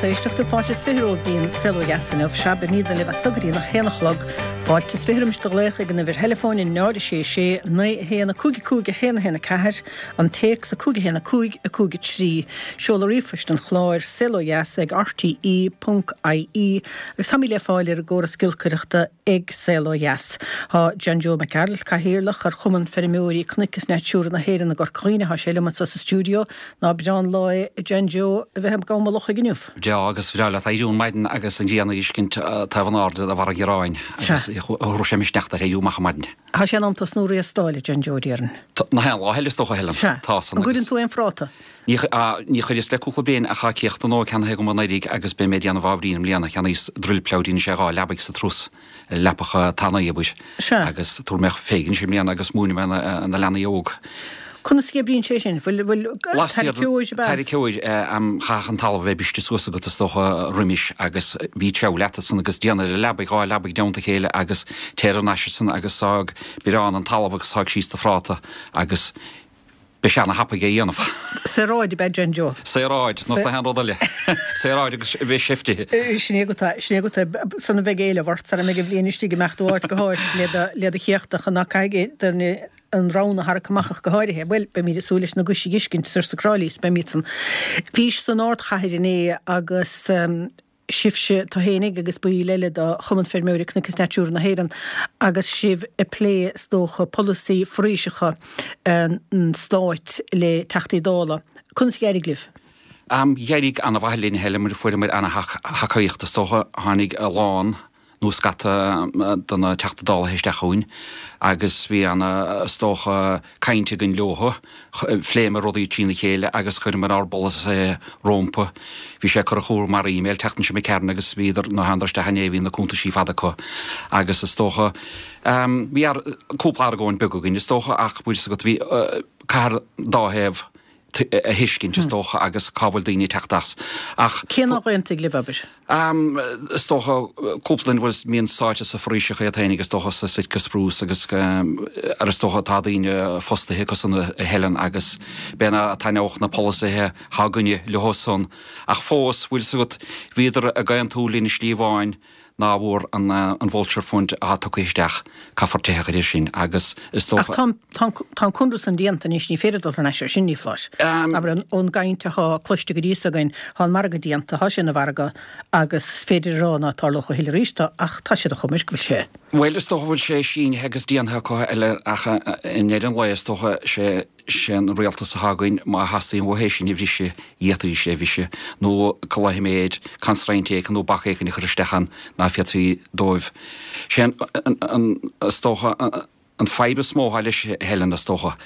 lucht éisteachta, fáilte is 20 romhaibh dtí'n Saol Ó Dheas inniu. Sea, beimídne libh as so go dtí a haon a chlog. Fáilte is 20 roimis do ghlaoch ag an uimhir theileafóin 0 6 6 9 1 5 5 1 1 4, an téacs 5 1 5 5 3, seoladh ríomhphoist an chláir, saolodheas ag rte ponc ie, agus táimid le fáil ar an gcóras giolcaireachta ag Saol Ó Dheas. Tá John Joe Mac Gearailt, Cathaoirleach ar Chumann Feirmeoirí Cnoic is Natura na hÉireann i gCorca Dhuibhne, tá sé liom anso sa stiúideo. Ná breá an lá é, a John Joe, a bheith ag Gabha Lochaigh inniu? Breá agus bhreá leat éirí ar maidin agus an ghrian a fheiscint taobh in airde de bharra an ghearáin agus thabharfadh sé misneach duit éirí amach ar maidin. Tá sé in am tosnú ag riastáil, a John Joe, déarfainn. Nach aon lá eile is dócha, Helen. Sea. Tá san An gcuireann tú aon phráta? Ní chuireas le cúpla bliain ach tá céachta nua ceannaithe agam anuraidh agus beidh mé ag déanamh ábhairín i mbliana. Cheannaíos drill plough dhéanann sé 2 leabaidh sa turas, leapacha tanaí, abair. Sea. Agus tabharfaidh mé féig anois i mbliana agus múinfidh mé na leanaí óg. Conas a oibríonn sé sin? Bhfuil, bhfuil tarraiceoir ab ea? Tarraiceoir, chaithfeadh an talamh a bheith briste suas agat is dócha roimis agus bhí treabhadh leat ansan agus déan ar an leabaidh, 2 leabaidh i dteannta a chéile agus téir thar n-ais ansan agus sáigh biorán an talamh agus sáigh síos do phráta agus Beidh sé ana-thapaidh é a dhéanamh. Saoráid ab ea John Joe. Saoráid, nó aon rud eile. Saoráid agus a bheith seiftithe. Sin é agat é, sin é agat é. Sula mbeidh éileamh ort, sara mbeidh an bhliain istigh, imeacht ó áit go háit le do, le do chéachtach, ná caithfidh duine an rann a tharrac amach ach go háirithe. Bhuel, beimid ag súil leis na gais a fheiscint soir sa Cráilí, is beimid san. Bhís san ardchathair inné agus. sibhse, tú fhéinig agus baill eile de Chumann Feirmeoirí Cnoic is Natura na hÉireann agus sibh ag plé, is dócha, polasaí foraoiseacha an stáit le Teachtaí Dála. Conas a d'éirigh libh? D'éirigh ana-mhaith linn, a Helen, mar fuaireamar ana-thacaíocht, is dócha. Tháinig a lán. nó scata de na Teachta Dála isteach chugainn agus bhí ana, is dócha, caint againn leothu. Phléamar rudaí trína chéile agus chuireamar ár bpolasaithe rómpa. Bhí sé curtha chucu mar email an tseachtain seo imigh tharainn agus bhíodar, nuair a thánadar isteach inné bhí na cuntaisí fada acu agus is dócha, bhí cúpla argóint beag againn is dócha ach bhfuil fhios agat bhí, caithfear dá thaobh a thuiscint, is dócha, agus cá bhfuil daoine ag teacht as. Ach. Cé nár aontaigh libh, abair? Is dócha, cúpla duine bhuel mbíonn sáite sa foraoiseacha iad féinig, is dócha, sa Sitka Spruce agus ar is dócha tá daoine fostaithe acu san a Helen agus b'fhéidir ná taitneodh na polasaithe atá againne leo san. Ach fós, bhfuil fhios agat, bhíodar ag aontú linn i slí amháin, ná bhfuair an Vulture Fund atá tugtha isteach, caithfear teitheadh air sin agus is dócha. Ach tá, tá an conradh san déanta anois, ní féidir dul thar n-ais air sin, ní foláir. Abair, ón gcaint atá cloiste go dtí so againn, tá an margadh déanta, tá sé ina mhargadh agus is féidir a rá ná tarlódh a thuilleadh arís ach tá siad a choimirc go bhfuil sé. Bhuel, is dócha go bhfuil sé sínithe agus déanta acu eile ach i ndeireadh an lae is dócha sé sé an rialtas atá againn, má theastaíonn uathu é sin a bhriseadh, d'fhéadfaidís é a bhriseadh, nó cloiche constraint éicint nó bac éicint a chur isteach ann ná féadfaí dóibh. Sé an, is dócha, an fadhb is mó atá leis, a Helen, is dócha,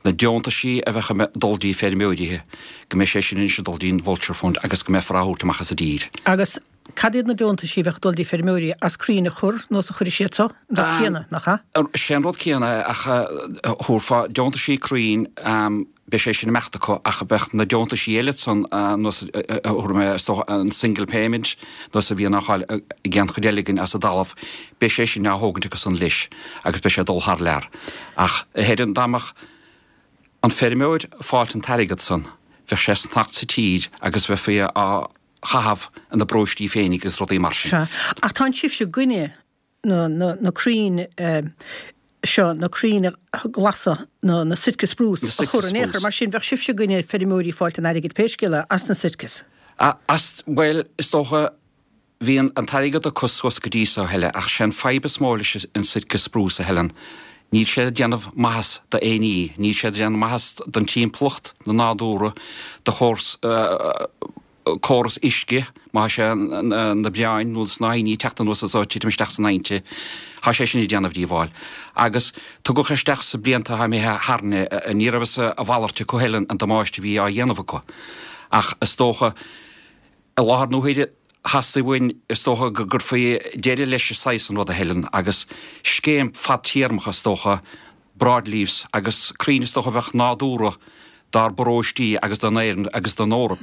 na deontaisí a bheadh ag dul dtí feirmeoirithe, go mbeidh sé sin anois ag dul dtí'n Vulture Fund agus go mbeifear á thabhairt amach as an dtír. Agus Cad iad na deontaisí a bheadh ag dul dtí feirmeoirí as crainn a chur nó as a chuirfidh siad so? An rud céanna, nach ea? Sé an rud céanna é ach thabharfá deontaisí crainn, beidh sé sin ag imeacht acu ach bheadh na deontaisí eile san nós a thabharfaidh mé is dócha an single payment nós a bhíonn á fháil ag aon chuid eile againn as an dtalamh, beidh sé sin á thógaint acu san leis agus beidh sé ag dul thar lear. Ach a Helen, dá mbeadh an feirmeoir ag fáilt an t-airgead san, bheadh sé ag fanacht sa tír agus bheifí á chaitheamh ina bparóistí féinig agus rudaí mar sin. Sea. Ach tánn sibhse i gcoinne na, na, na crainn seo, na crainn ghlasa, na, na Sitka spruce a chur in aon chor. Mar sin, bheadh sibhse i gcoinne feirmeoirí fáilt an airgid pé scéal é, as na Sitkas. As, bhuel, is dócha, bhí an, an t-airgead acu suas go dtí so, a Helen, ach sé an fadhb is mó leis an Sitka spruce, a Helen, níl sé ag déanamh maitheas d'aon ní, níl sé ag déanamh maitheas don timpeallacht, na nádúra, do chóras, córas uisce, má thá sé na bréáin nó na snáithíní ag teacht anuas is ag titim isteach san aibhnte, thá sé sin ag déanamh díobháil. Agus tugadh isteach sa blianta atá imithe tharainn é, ní raibh fhios a mhalairt acu Helen an damáiste a bhí á dhéanamh acu. Ach is dócha, i láthair na huaire, theastaigh uainn, is dócha, go gcuirfí deireadh leis an saghas san ruda Helen, agus scéim fadtéarmach, is dócha, broadleaves agus crainn is dócha a bheadh nádúrtha dár bparóistí agus don Éirinn agus don Eoraip.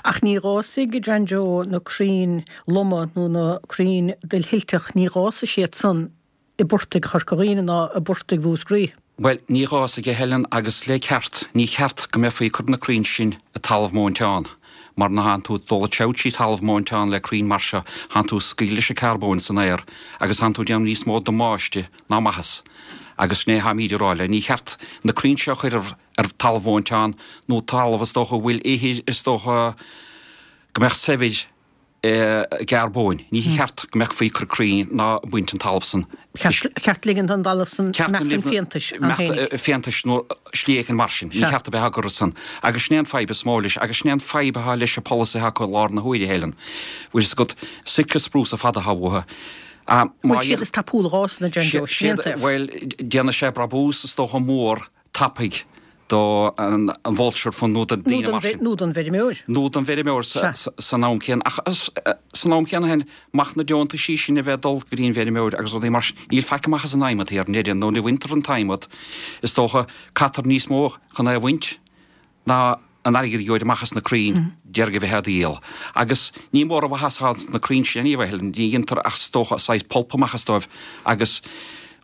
Ach ní dh'fhásfaidh, John Joe, na crainn loma nó na crainn duillsilteach, ní dh'fhásfaidh siad san i bportaigh Chorca Dhuibhne ná i bportaigh Mhúscraí. Bhuel, ní dh'fhásfaidh, a Helen, agus le ceart, ní cheart go mbeifí ag cur na crainn sin i talamh móinteán. Mar nuair a thánn tú ag dul ag treabhadh trí thalamh móinteán le crainn mar seo, thánn tú ag scaoileadh leis an carbóin san aer agus thánn tú ag déanamh níos mó damáiste ná maitheas. Agus sin é tháimíd ag rá le, ní cheart na crainn seo a chur ar ar talamh mhóinteán nó talamh is dócha a bhfuil ithir is dócha go mbeadh saibhir i gcarbóin. Ní cheart go mbeadh faoi cur crainn ná baint an talamh san. Ceart ligint don dtalamh san imeacht chun fiántais ann féinig. Fiántais nó slí éicint mar sin. Ní cheart a bheith á gcur san. Agus sin é an fadhb is mó leis agus sin é an fadhb atá leis an polasaithe acu i lár na huaire, a Helen. Bhfuil fhios agat, Sitka spruce ar fad atá uathu. Bhfuil siad is tapúla dhá san a John Joe, sin é an taobh. Bhuel, déanfaidh sé brabús is dócha mór tapaidh do an Vulture Fund nó do daoine mar sin. Nó don bhfeirmeoir. Nó don bhfeirmeoir san am céanna. Ach san am céanna féin, amach na deontaisí sin a bheith ag dul go dtí an bhfeirmeoir agus rudaí mar sin, níl faic amach as an adhmad thiar i ndeireadh, nó ní bhaintear an t-adhmad, is dócha, caitear níos mó chun é a bhaint ná an airgead a gheobhair amach as na crainn déarfainn a bheith á dhíol. Agus ní mór an mhaitheas atá sna crainn sin anyway, ní dhéantar ach is dócha saghas pulp amach as dóibh agus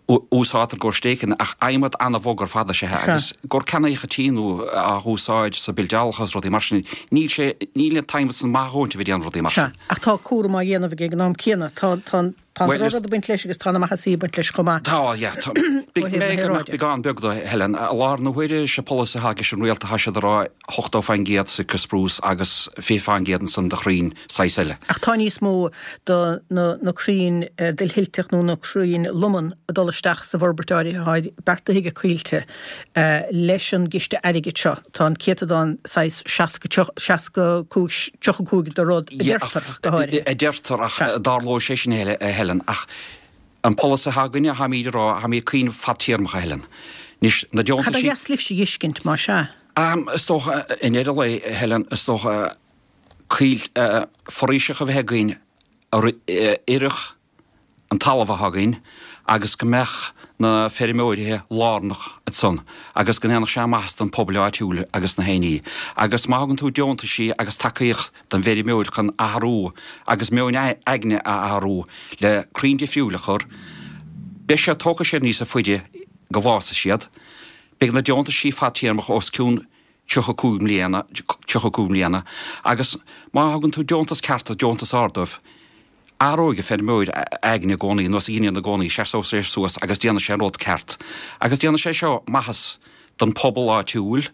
úsáidtear i gcomhair stéiceanna, ach adhmad an-bhog ar fad is ea é agus i gcomhair ceannaíocha tí nó á úsáid sa bildeálacha agus rudaí mar sin, níl sé, níl an t-adhmad san maith a dhóthaint a bheith ag déanamh rudaí mar sin. Sea, ach tá cúram á dhéanamh aige ag an am céanna. Tá, tá an, tá an drochrud ag baint leis agus tá na maitheasaí ag baint leis chomh maith. Tá, yeah. Tá, big, mé go mbeadh beagán beag do, Helen. I láthair na huaire, sé polasaí atá aige an rialtas, tá siad ag rá 80% Sitka spruce agus 20% ansan de chrainn saghas eile. Ach tá níos mó de na crainn duillsilteach nó na crainn loman ag dul isteach sa bhforbairt áirithe atá beartaithe aige Coillte leis an gciste airgid seo. Tá an céatadán saghas 60, 65, 35 de rud a deirtear ach go háirithe. A deirtear ach dtarlóidh sé sin a Helen ach an polasaí atá againne, táimíd ag rá, táimíd ag cuimhneamh fadtéarmach a Helen. Anois na deontaisí. Cad ba dheas libhse a dh'fheiscint más ea? Is dócha i ndeireadh lae a Helen, is dócha coill foraoiseacha a bheith againn a oirfeadh an talamh atá againn agus go mbeadh na feirmeoirithe lárnach ansan agus go ndéanfadh sé maitheas don pobal áitiúil agus na héinní. Agus má thugann tú deontaisí agus tacaíocht don bhfeirmeoir chun athrú agus meon aigne a athrú le crainn difriúil a chur, beidh siad, tógfaidh siad níosa faide go bhfásfaidh siad. Beidh na deontaisí fadtéarmach os cionn 35 mbliana, 35 mbliana, agus má thugann tú deontas ceart, deontas ard dóibh, athróidh an feirmeoir a aigne i gcónaí, nós a dheineann i gcónaí, seasóidh sé suas agus déanfaidh sé an rud ceart. Agus déanfaidh sé seo maitheas don phobal áitiúil,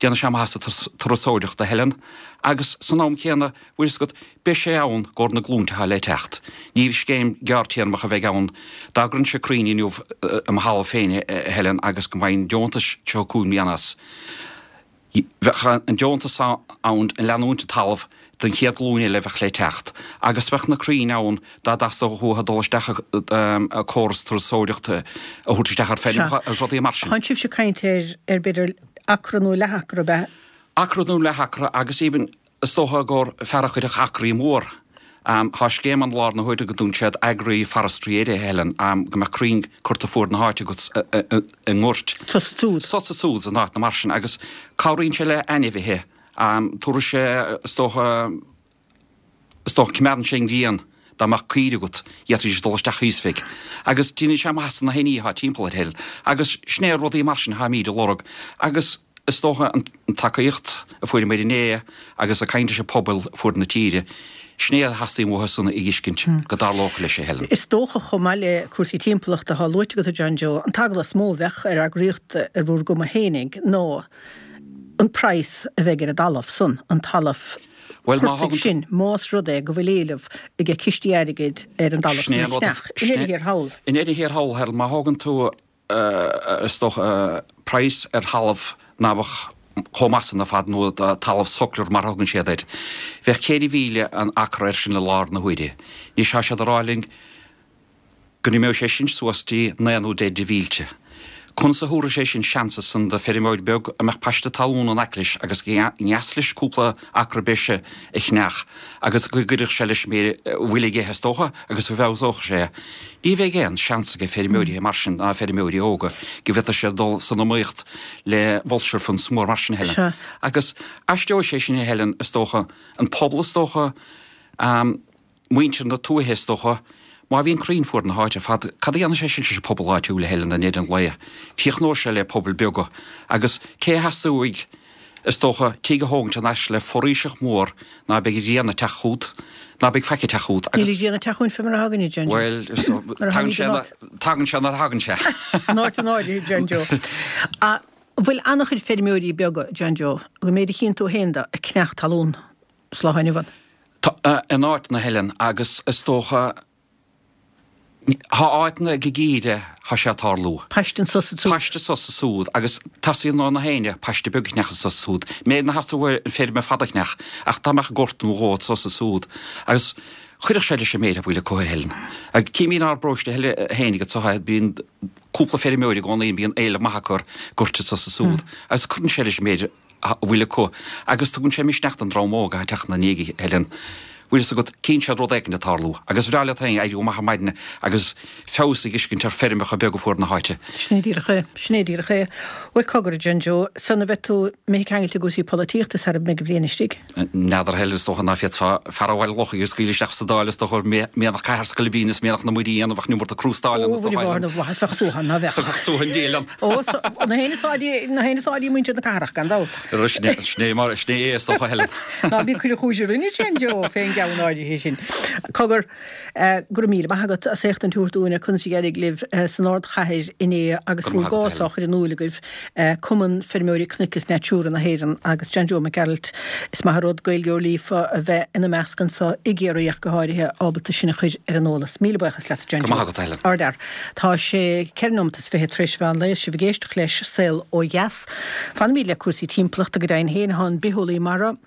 déanfaidh sé maitheas do turasóireacht a Helen, agus san am céanna, bhfuil fhios agat, beidh sé ann i gcomhair na glúinte atá le teacht. Ní scéim gearrtéarmach a bheidh ann. Dá gcuirinnse crainn inniu i mo thalamh féin, a Helen, agus go bhfaighinn deontas 35 mbliana as, bheadh an deontas ann ag leanúint an talamh don chéad ghlúin eile a bheadh le teacht. Agus bheadh na crainn ann dá dteastódh uathu dul isteach i córas turasóireachta a thabhairt isteach ar feirmeacha agus rudaí mar sin. Tánn sibhse ag caint ar, ar b'fhéidir acra nó leath-acra, ab ea? Acra nó leath-acra agus even Is dócha gur fear a chuirfeadh acraí mór. Tá scéim ann i láthair na huaire go dtugann siad agri-forestry air, a Helen, go mbeadh crainn curtha fuaid na háite agat i ngoirt. Sos is siúd. Sos is siúd in áiteanna mar sin agus cabhraíonn sé le ainmhithe. Tabharfaidh sé, is dócha, is dócha, coimeádann sé an ghrian dá mbeadh caoirigh agat, d'fhéadfaidís dul isteach thíos fé. Agus déanann sé maitheas do na héinní atá timpeall air, a Helen. Agus sin é rudaí mar sin atáimíd ag lorg. Agus. Is dócha an tacaíocht a fuaireamar inné agus ag caint leis an pobal fuaid na tíre, sin é a theastaíonn uathu san a fheiscint go dtarlódh leis, a Helen. Is dócha, chomh maith le cúrsaí timpeallachta atá luaite agat, a John Joe, an t-eagla is mó a bheadh ar eagraíocht ar bhur gcuma fhéinig ná an praghas a bheidh ar an dtalamh san, an talamh portaigh sin, más rud é go bhfuil éileamh ag cistí airgid ar an dtalamh san a cheannach. I ndeireadh thiar thall. I ndeireadh thiar thall, Helen, má thógann tú is dócha, praghas ar thalamh ná beadh chomh maith san ar fad, nó talamh suckler mar a thugann siad air. Bheadh 4,000 an acra air sin i láthair na huaire. Anois tá siad ag rá linn go n-imeoidh sé sin suas dtí naoi nó deich de mhílte. Conas a thabharfaidh sé sin seans ansan do feirmeoir beag a mbeadh paiste talún in aice leis agus gur dheas leis cúpla acra breise a cheannach agus go gcuirfeadh sé leis an méid a bhfuil aige is dócha agus go bhfeabhsódh sé é. Ní bheidh aon seans ag feirmeoirí mar sin ná feirmeoirí óga go bhféadfadh siad dul san iomaíocht le vulture funds mór mar sin a Helen. Agus aisteoidh sé sin a Helen is dócha, an pobal is dócha, muintir na tuaithe is dócha, má bhíonn crainn fuaid na háite ar fad, cad a dhéanfaidh sé sin leis an pobal áitiúil a Helen i ndeireadh an lae? Críochnóidh sé le pobail beaga agus cé a theastóidh? Is dócha, tigh a thógaint in ais le foraoiseacht mhór ná beidh grian ag teacht chút, ná beidh faic ag teacht chút agus. Níl an ghrian ag teacht chugainn fé mar a thagann, a John Joe. Bhuel, tagann sé, tagann sé nuair a thagann sé. In áit an áirithe, John Joe. An bhfuil an-chuid feirmeoirí beaga, John Joe, an méid a chíonn tú féin de, ag ceannach talún sa lá inniu ann? Tá, in áiteanna, a Helen, agus is dócha, Thá áiteanna ag geimhreadh thá sé ag tarlú. Paiste anso 's ansúd. Paiste anso 's ansúd agus teastaíonn ó na héinne paiste beag a cheannach anso 's ansúd. Méid ná theastódh uaidh an feirm ar fad a cheannach ach dá mbeadh gort nó dhó anso 's ansúd agus chuirfeadh sé leis an méid a bhfuil acu a Helen. Agus címid inár bparóiste fhéinig anso bíonn cúpla feirmeoir i gcónaí bíonn éileamh maith acu ar goirt anso 's ansúd agus cuireann sé leis an méid a bhfuil acu agus tugann sé misneach don dream óg atá ag teacht ina ndiaidh, a Helen. Bhfuil fhios agat, cíonn siad rud éicint ag tarlú agus bhreá leat féin éirí amach ar maidin agus feabhas a dh'fheiscint ar feirmeacha beaga fuar na háite. Sin é díreach é. Sin é díreach é. Bhuel, cogar, a John Joe, sula mbeidh tú imithe ceangailte i gcúrsaí polaitíochta sara mbeidh an bhliain istigh? N'fheadar, a Helen, is dócha ná féadfá fear ó Bhaile Locha a scaoileadh isteach sa Dáil, is dócha, mianach cathair 's scoilbín is mianach na muirí a dhéanamh ach an iomarca crústáil ann, is dócha, Ó, Mhuire Mháthair na bhFlaitheas, bheadh suaitheadh ann, ná bheadh? Bheadh suaitheadh an diabhail ann. Ó, na héinne is áirí, na héinne is áirí muintir na cathrach, gan dabht. Sin é, sin é mar, sin é é, is dócha, a Helen. Ná bí ag cur an chúis orainne, a John Joe, fén gceann áirithe sin. Cogar, Go raibh míle maith agat as éachtaint a thabhairt dúinn ar conas a d'éirigh libh san ardchathair inné agus bhur gcás á chur in iúil agaibh, Cumann Feirmeoirí Cnoic is Natura na hÉireann agus John Joe Mac Gearailt. Is maith an rud Gaeilgeoir líofa a bheith ina measc anso i gCiarraí ach go háirithe, ábalta sinn a chur ar an eolas. Míle buíochas leat a John Joe. Go raibh maith agat, a Helen. Ardfhear. Tá sé 4 nóimeat is 20 tar éis mheán lae is sibh ag éisteacht leis Saol Ó Dheas. Fanfaimid le cúrsaí timpeallachta go deimhin féin. Tá an bitheolaí mara,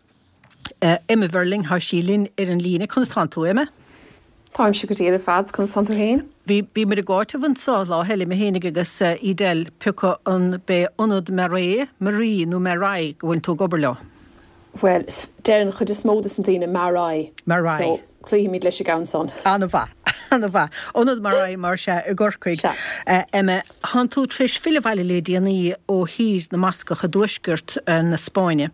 Emma Verling, thá sí linn ar an líne. Conas tánn tú, Emma? Táimse go diail ar fad, conas tánn tú féin? Bhí, bhíomar ag áiteamh anso lá eile, mé fhéinig agus Edel, pioca an b'é Ionad Marais, Marie nó Marai go bhfuil tú ag obair leo? Bhuel, deir an chuid is mó des na daoine Marai. Marai. So, cloífimid leis an gceann san. An-mhaith, an-mhaith. Ionad Marai mar sea i gCorcaigh. Sea. Emma, Thánn tú tar éis filleadh abhaile le déanaí ó Thír na mBascach i dtuaisceart na Spáinne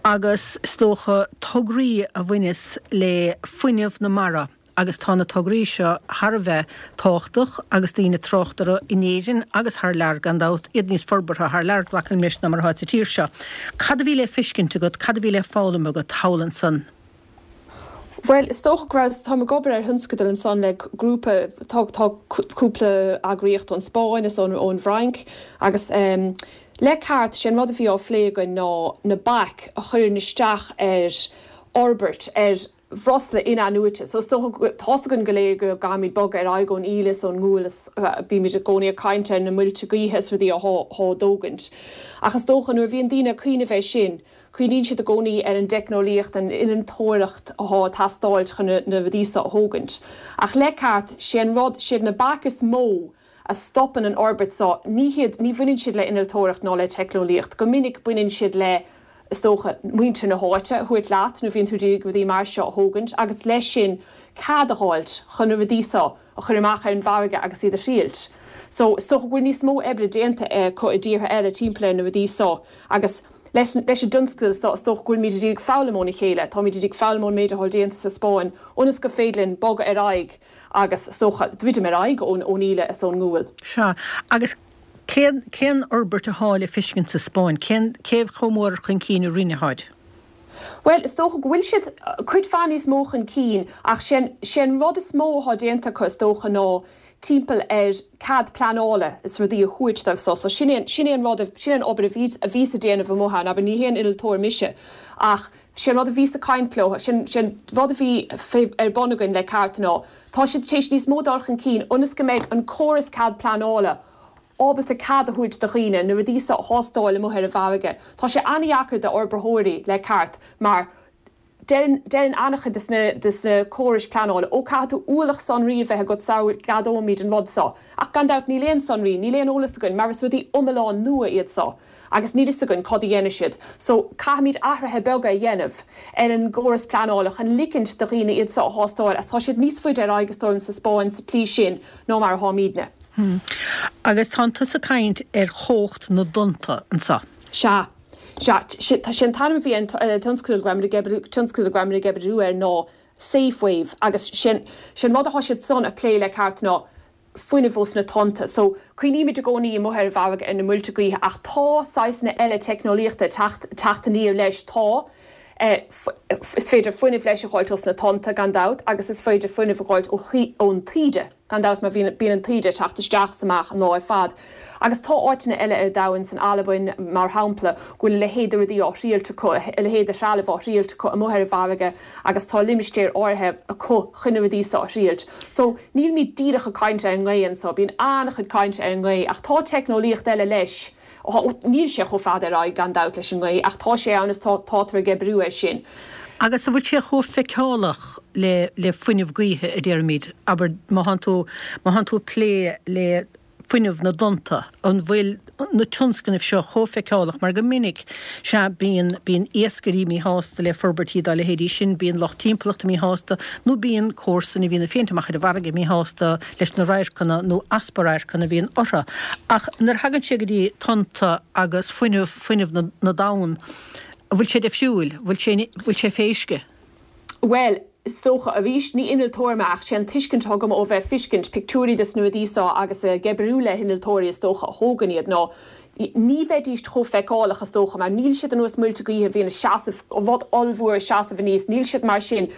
agus is dócha tograí a bhaineas le fuinneamh na mara agus tá na tograí seo thar a bheith tábhachtach agus daoine ag trácht orthu in Éirinn agus thar lear gan dabht, iad níos forbartha thar lear, glacaim leis, ná mar atá sa tír seo. Cad a bhí le feiscint agat, cad a bhí le foghlaim agat thall ansan? Bhuel, is dócha go raibh, táim ag obair ar thionscadal ansan le grúpa, tá, tá cúpla eagraíocht ón Spáinn is ón, ón bhFrainc agus le ceart, sé an rud a bhí á phlé againn ná na baic a chuireann isteach ar fhorbairt, ar bhreosla in-athnuaite. So is dócha go, tá's againn go léir go gcaithfimid bogadh ar aghaidh ón íle is ón ngual is bímid i gcónaí ag caint ar na muilte gaoithe is rudaí athá á dtógaint. Ach is dócha nuair a bhíonn daoine ag cuimhneamh air sin, Cuimhníonn siad i gcónaí ar an dteicneolaíocht, an innealtóireacht athá ag teastáilt chun na rudaí so a thógaint. Ach le ceart, sé an rud, siad na baic is mó a stopann an fhorbairt so, ní hiad, ní bhaineann siad le innealtóireacht ná le teicneolaíocht. Go minic baineann siad le, is dócha, muintir na háite a thabhairt leat nuair a bhíonn tú d'iarraidh rudaí mar seo a thógaint agus leis sin cead a dh'fháilt chun na rudaí so a chur amach ar an bhfarraige agus iad a thriailt. So, is dócha go bhfuil níos mó oibre déanta acu i dtíortha eile timpeall ar na rudaí so agus leis an dtionscadal so is dócha go bhfuilimid ag foghlaim óna chéile, táimid ag foghlaim ón méid atá déanta sa Spáinn ionas gur féidir linn bogadh ar aghaidh agus is dócha druidim ar aghaidh ón íle is ón ngual. Sea, agus cén, cén fhorbairt athá le feiscint sa Spáinn? Cén, cé chomh mór chun cinn a rinne tháid? Bhuel, is dócha go bhfuil siad cuid mhaith níos mó chun cinn ach sé an, sé an rud is mó athá déanta acu is dócha ná timpeall ar cead pleanála is rudaí a thabhairt dóibh so. So sin é, sin é an rud, sin é an obair a bhí, a bhíos ag déanamh amuigh ann, abair ní haon innealtóir mise ach sé an rud a bhíos ag caint leo, sin, sé an rud a bhí fé, ar bun againn le ceart ná tá siad tar éis níos mó dul chun cinn ionas go mbeidh an córas cead pleanála ábalta cead a thabhairt do dhaoine na rudaí so a thástáil amuigh ar an bhfarraige. Tá sé an-dheacair d'fhorbraitheoirí le ceart mar deireann, deireann an-chuid de na, de na córais pleanála, ó caithfidh tú ualach sonraí a bheith agat sara gceadóimid an rud so. Ach gan dabht níl aon sonraí, níl aon eolas againn mar is rudaí iomlán nua iad so agus níl fhios againn cad a dhéanfaidh siad. So caithfimid athruithe beaga a dhéanamh ar an gcóras pleanála chun ligint do dhaoine iad so a thástáil agus tá siad níos faide ar aghaidh is dóigh liom sa Spáinn sa tslí sin ná mar atháimidne. Agus tánn tusa ag caint ar chumhacht na dtonnta anso. Sea. Sea. Sé an t-ainm a bhí ar an tionscadal go raibh muid ag oibriú, tionscadal go raibh muid ag oibriú air ná Safe Wave agus sé an rud atá siad san a plé le ceart ná. fuinneamh ós na tonnta. So, cuimhnímid i gcónaí amuigh ar an bhfarraige ar na muilte gaoithe ach tá saghsanna eile teicneolaíochta ag teacht, teacht aniar leis. Tá, is féidir fuinneamh leis a dh'fháilt ós na tonnta gan dabht agus is féidir fuinneamh a dh'fháilt ó, ón taoide. Gan dabht, mar bhíonn, bíonn an taoide ag teacht isteach is amach an lá ar fad. Agus tá áiteanna eile ar domhan, san Albain, mar shampla, go bhfuil a leithéid de rudaí á thriailt acu, a leithéid de threalamh á thriailt acu amuigh ar an bhfarraige agus tá limistéir áirithe acu chun na rudaí seo a thriailt. So, nílimid díreach ag caint ar an ngaoth anso, bíonn an-chuid cainte ar an ngaoth ach tá teicneolaíocht eile leis. Níl sé chomh fada ar aghaidh, gan dabht, leis an ngaoth, ach tá sé ann is tá, tátar ag oibriú air sin. Agus an bhfuil sé chomh feiceálach le, le fuinneamh gaoithe, a déarfaimid? Abair, má thánn tú, má thánn tú ag plé le fuinneamh na dtonnta, an bhfuil na tionscnaimh seo chomh feiceálach? Mar go minic, sea, bíonn, bíonn iascairí míshásta le forbairtí dá leithéidí sin, bíonn lucht timpeallachta míshásta, nó bíonn comharsain a bhíonn ag féachaint amach ar an bhfarraige míshásta leis na radharcanna nó easpa radharcanna a bhíonn orthu. Ach nuair a thagann sé go dtí tonnta agus fuinneamh, fuinneamh na, na dtonn, an bhfuil sé difriúil? Bhfuil sé, bhfuil sé fé uisce? Bhuel, is dócha, arís, ní innealtóir mé ach sé an tuiscint atá agam ó bheith ag feiscint pictiúirí des na rudaí seo agus ag oibriú le hinnealtóirí is dócha a thógann iad ná ní bheidíst chomh feiceálach is dócha mar níl siad ar nós muilte gaoithe a bhíonn ag seasamh, rud ollmhór ag seasamh aníos, níl siad mar sin.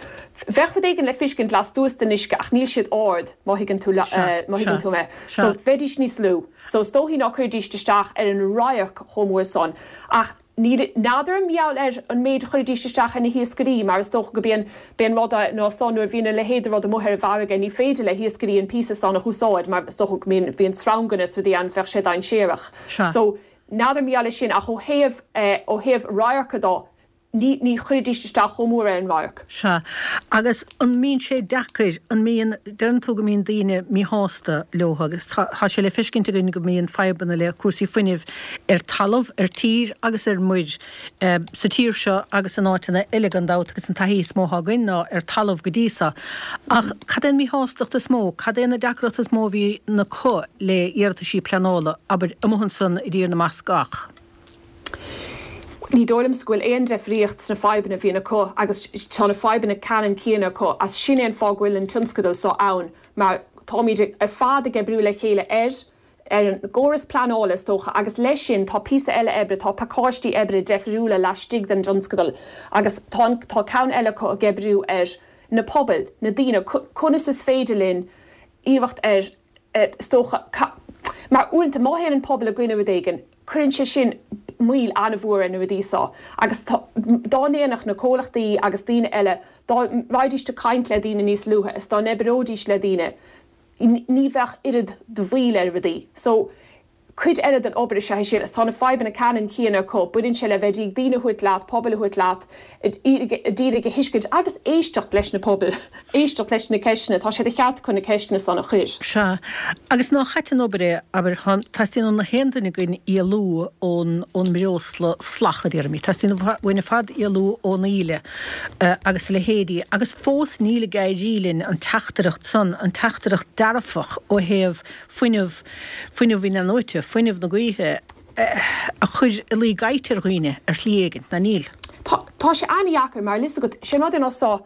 Bheadh rud éigin le feiscint lastuas den uisce ach níl siad ard, má thuigeann tú, má thuigeann tú mé. So bheidíst níos lú. So is dóichí ná cuirfidíst isteach ar an radharc chomh mór san ach. Níl, n'fheadar mar gheall ar an méid a chuirfidís isteach ar na hiascairí, mar is dócha go b'é an, b'é an rud é ná san nuair a bhíonn a leithéid de rud amuigh ar an bhfarraige ní féidir le hiascairí an píosa san a húsáid mar is dócha go mbíonn, bíonn sreanganna is rudaí ann is bheadh sé dainséarach. Sea. So, n'fheadar mar gheall ar sin ach ó thaobh, ó thaobh radharca dó, ní, ní chuirfidís isteach chomh mór ar an radharc. Sea. Agus an mbíonn sé deacair, an mbíonn, deireann tú go mbíonn daoine míshásta leo agus tá, tá sé le feiscint againn go mbíonn fadhbanna le cúrsaí fuinnimh ar talamh, ar tír agus ar muir sa tír seo agus in áiteanna eile gan dabht agus an taithí is mó atá againn ná ar talamh go dtí so. Ach cad é an mhíshástacht is mó, cad é na deacrachtaí is mó a bhíonn acu le iarrataisí pleanála, abair, amuigh ansan i dTír na mBascach? Ní dóigh liomsa go bhfuil aon deifríocht sna fadhbanna a bhíonn acu agus tá na fadhbanna ceannann céanna acu as sin é an fáth go bhfuil an tionscadal seo ann mar táimid ar fad ag oibriú le chéile ar ar an gcóras pleanála is dócha agus leis sin tá píosa eile oibre, tá pacáistí oibre deifriúla laistigh den dtionscadal agus tá an tá ceann eile acu ag oibriú ar na pobail, na daoine, conas is féidir linn iarracht ar is dócha, mar uaireanta má théann an pobal i gcoinne rud éigin, cuireann sé sin moill an-mhór ar na rudaí seo agus tá, dá ndéanfadh na comhlachtaí agus daoine eile, dá raghaidís ag caint le daoine níos luaithe is dá n-oibreoidís le daoine, ní bheadh oiread de mhoill ar rudaí. So, Cuid eile den obair is ea é sin is tá na fadhbanna ceannann céanna acu. Baineann sé le bheith ag daoine a thabhairt leat, pobail a thabhairt leat, d'iarraidh a thuiscint agus éisteacht leis na pobail, éisteacht leis na ceisteanna. Tá sé de cheart acu na ceisteanna san a chur. Sea. Agus nach ait an obair é, abair, teastaíonn ó na haon duine againn éalú ón, ón mbreosla salach, a déarfaimid. Teastaíonn uainn ar fad éalú ón íle agus a leithéidí. Agus fós níl ag éirí linn an teachtaireacht san, an teachtaireacht dearfach ó thaobh fuinneamh, fuinneamh in-athnuaite, fuinneamh na gaoithe a chur i luí gaibhte ar dhaoine ar shlí éigin, ná níl? Tá, tá sé an-dheacair mar 'fhios agat, sé an rud é ná so,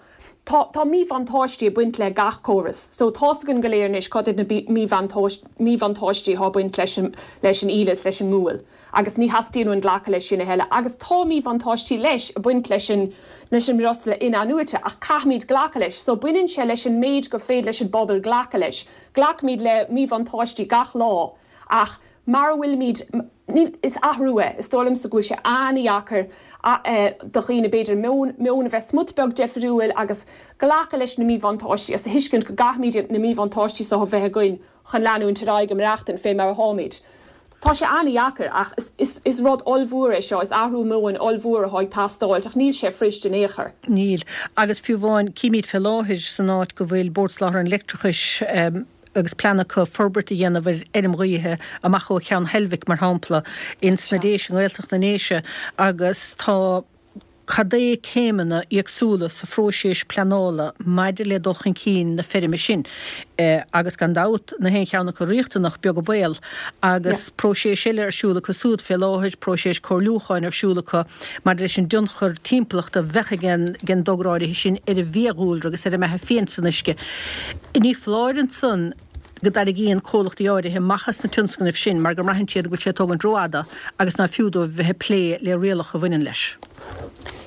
tá, tá míbhuntáistí ag baint le gach córas. So tá's againn go léir anois cad iad na míbhuntáistí atá ag baint leis an, leis an íle is leis an ngual agus ní theastaíonn uainn glacadh leis sin a thuilleadh agus tá míbhuntáistí leis ag baint leis an, leis an mbreosla in-athnuaite ach caithfimid glacadh leis. So baineann sé leis an méid gur féidir leis an bpobal glacadh leis. Glacaimid le míbhuntáistí gach lá ach mar a bhfuilimid, níl, is athrú é. Is dóigh liomsa go bhfuil sé an-dheacair do dhaoine b'fhéidir meon, meon a bheith smut beag deifriúil agus glacadh leis na míbhuntáistí agus a thuiscint go gcaithfimid na míbhuntáistí seo a bheith againn chun leanúint ar aghaidh ag maireachtaint fé mar atáimid. Tá sé an-dheacair ach is, is rud ollmhór é seo, is athrú meoin ollmhór atá ag teastáilt ach níl sé fuirist in aon chor. Níl. Agus fiú amháin, címid fé láthair san áit go bhfuil Bord Soláthair an Leictreachais agus plean acu forbairt a dhéanamh ar fheirm ghaoithe amach ó Cheann Heilbhic, mar shampla, ins na Déise, i nGaeltacht na nDéise, agus tá cad é céimeanna éagsúla sa phróiseas pleanála maidir le dul chun cinn na feirme sin agus gan dabht na haon cheann acu riachtanach, beag an baol, agus próiseas eile ar siúl acu súd fé láthair, próiseas comhairliúcháin ar siúl acu maidir leis an dtionchar timpeallachta a bheadh ag an dtogra áirithe sin ar an bhfiadhúlra agus ar an mbeatha fiáin san uisce. Ní foláir ansan. go dtarraingíonn comhlachtaí áirithe amach as na tionscnaimh sin mar go mbraitheann siad go bhfuil sé ag tógaint rófhada agus ná fiú dóibh bheith ag plé le rialacha a bhaineann leis.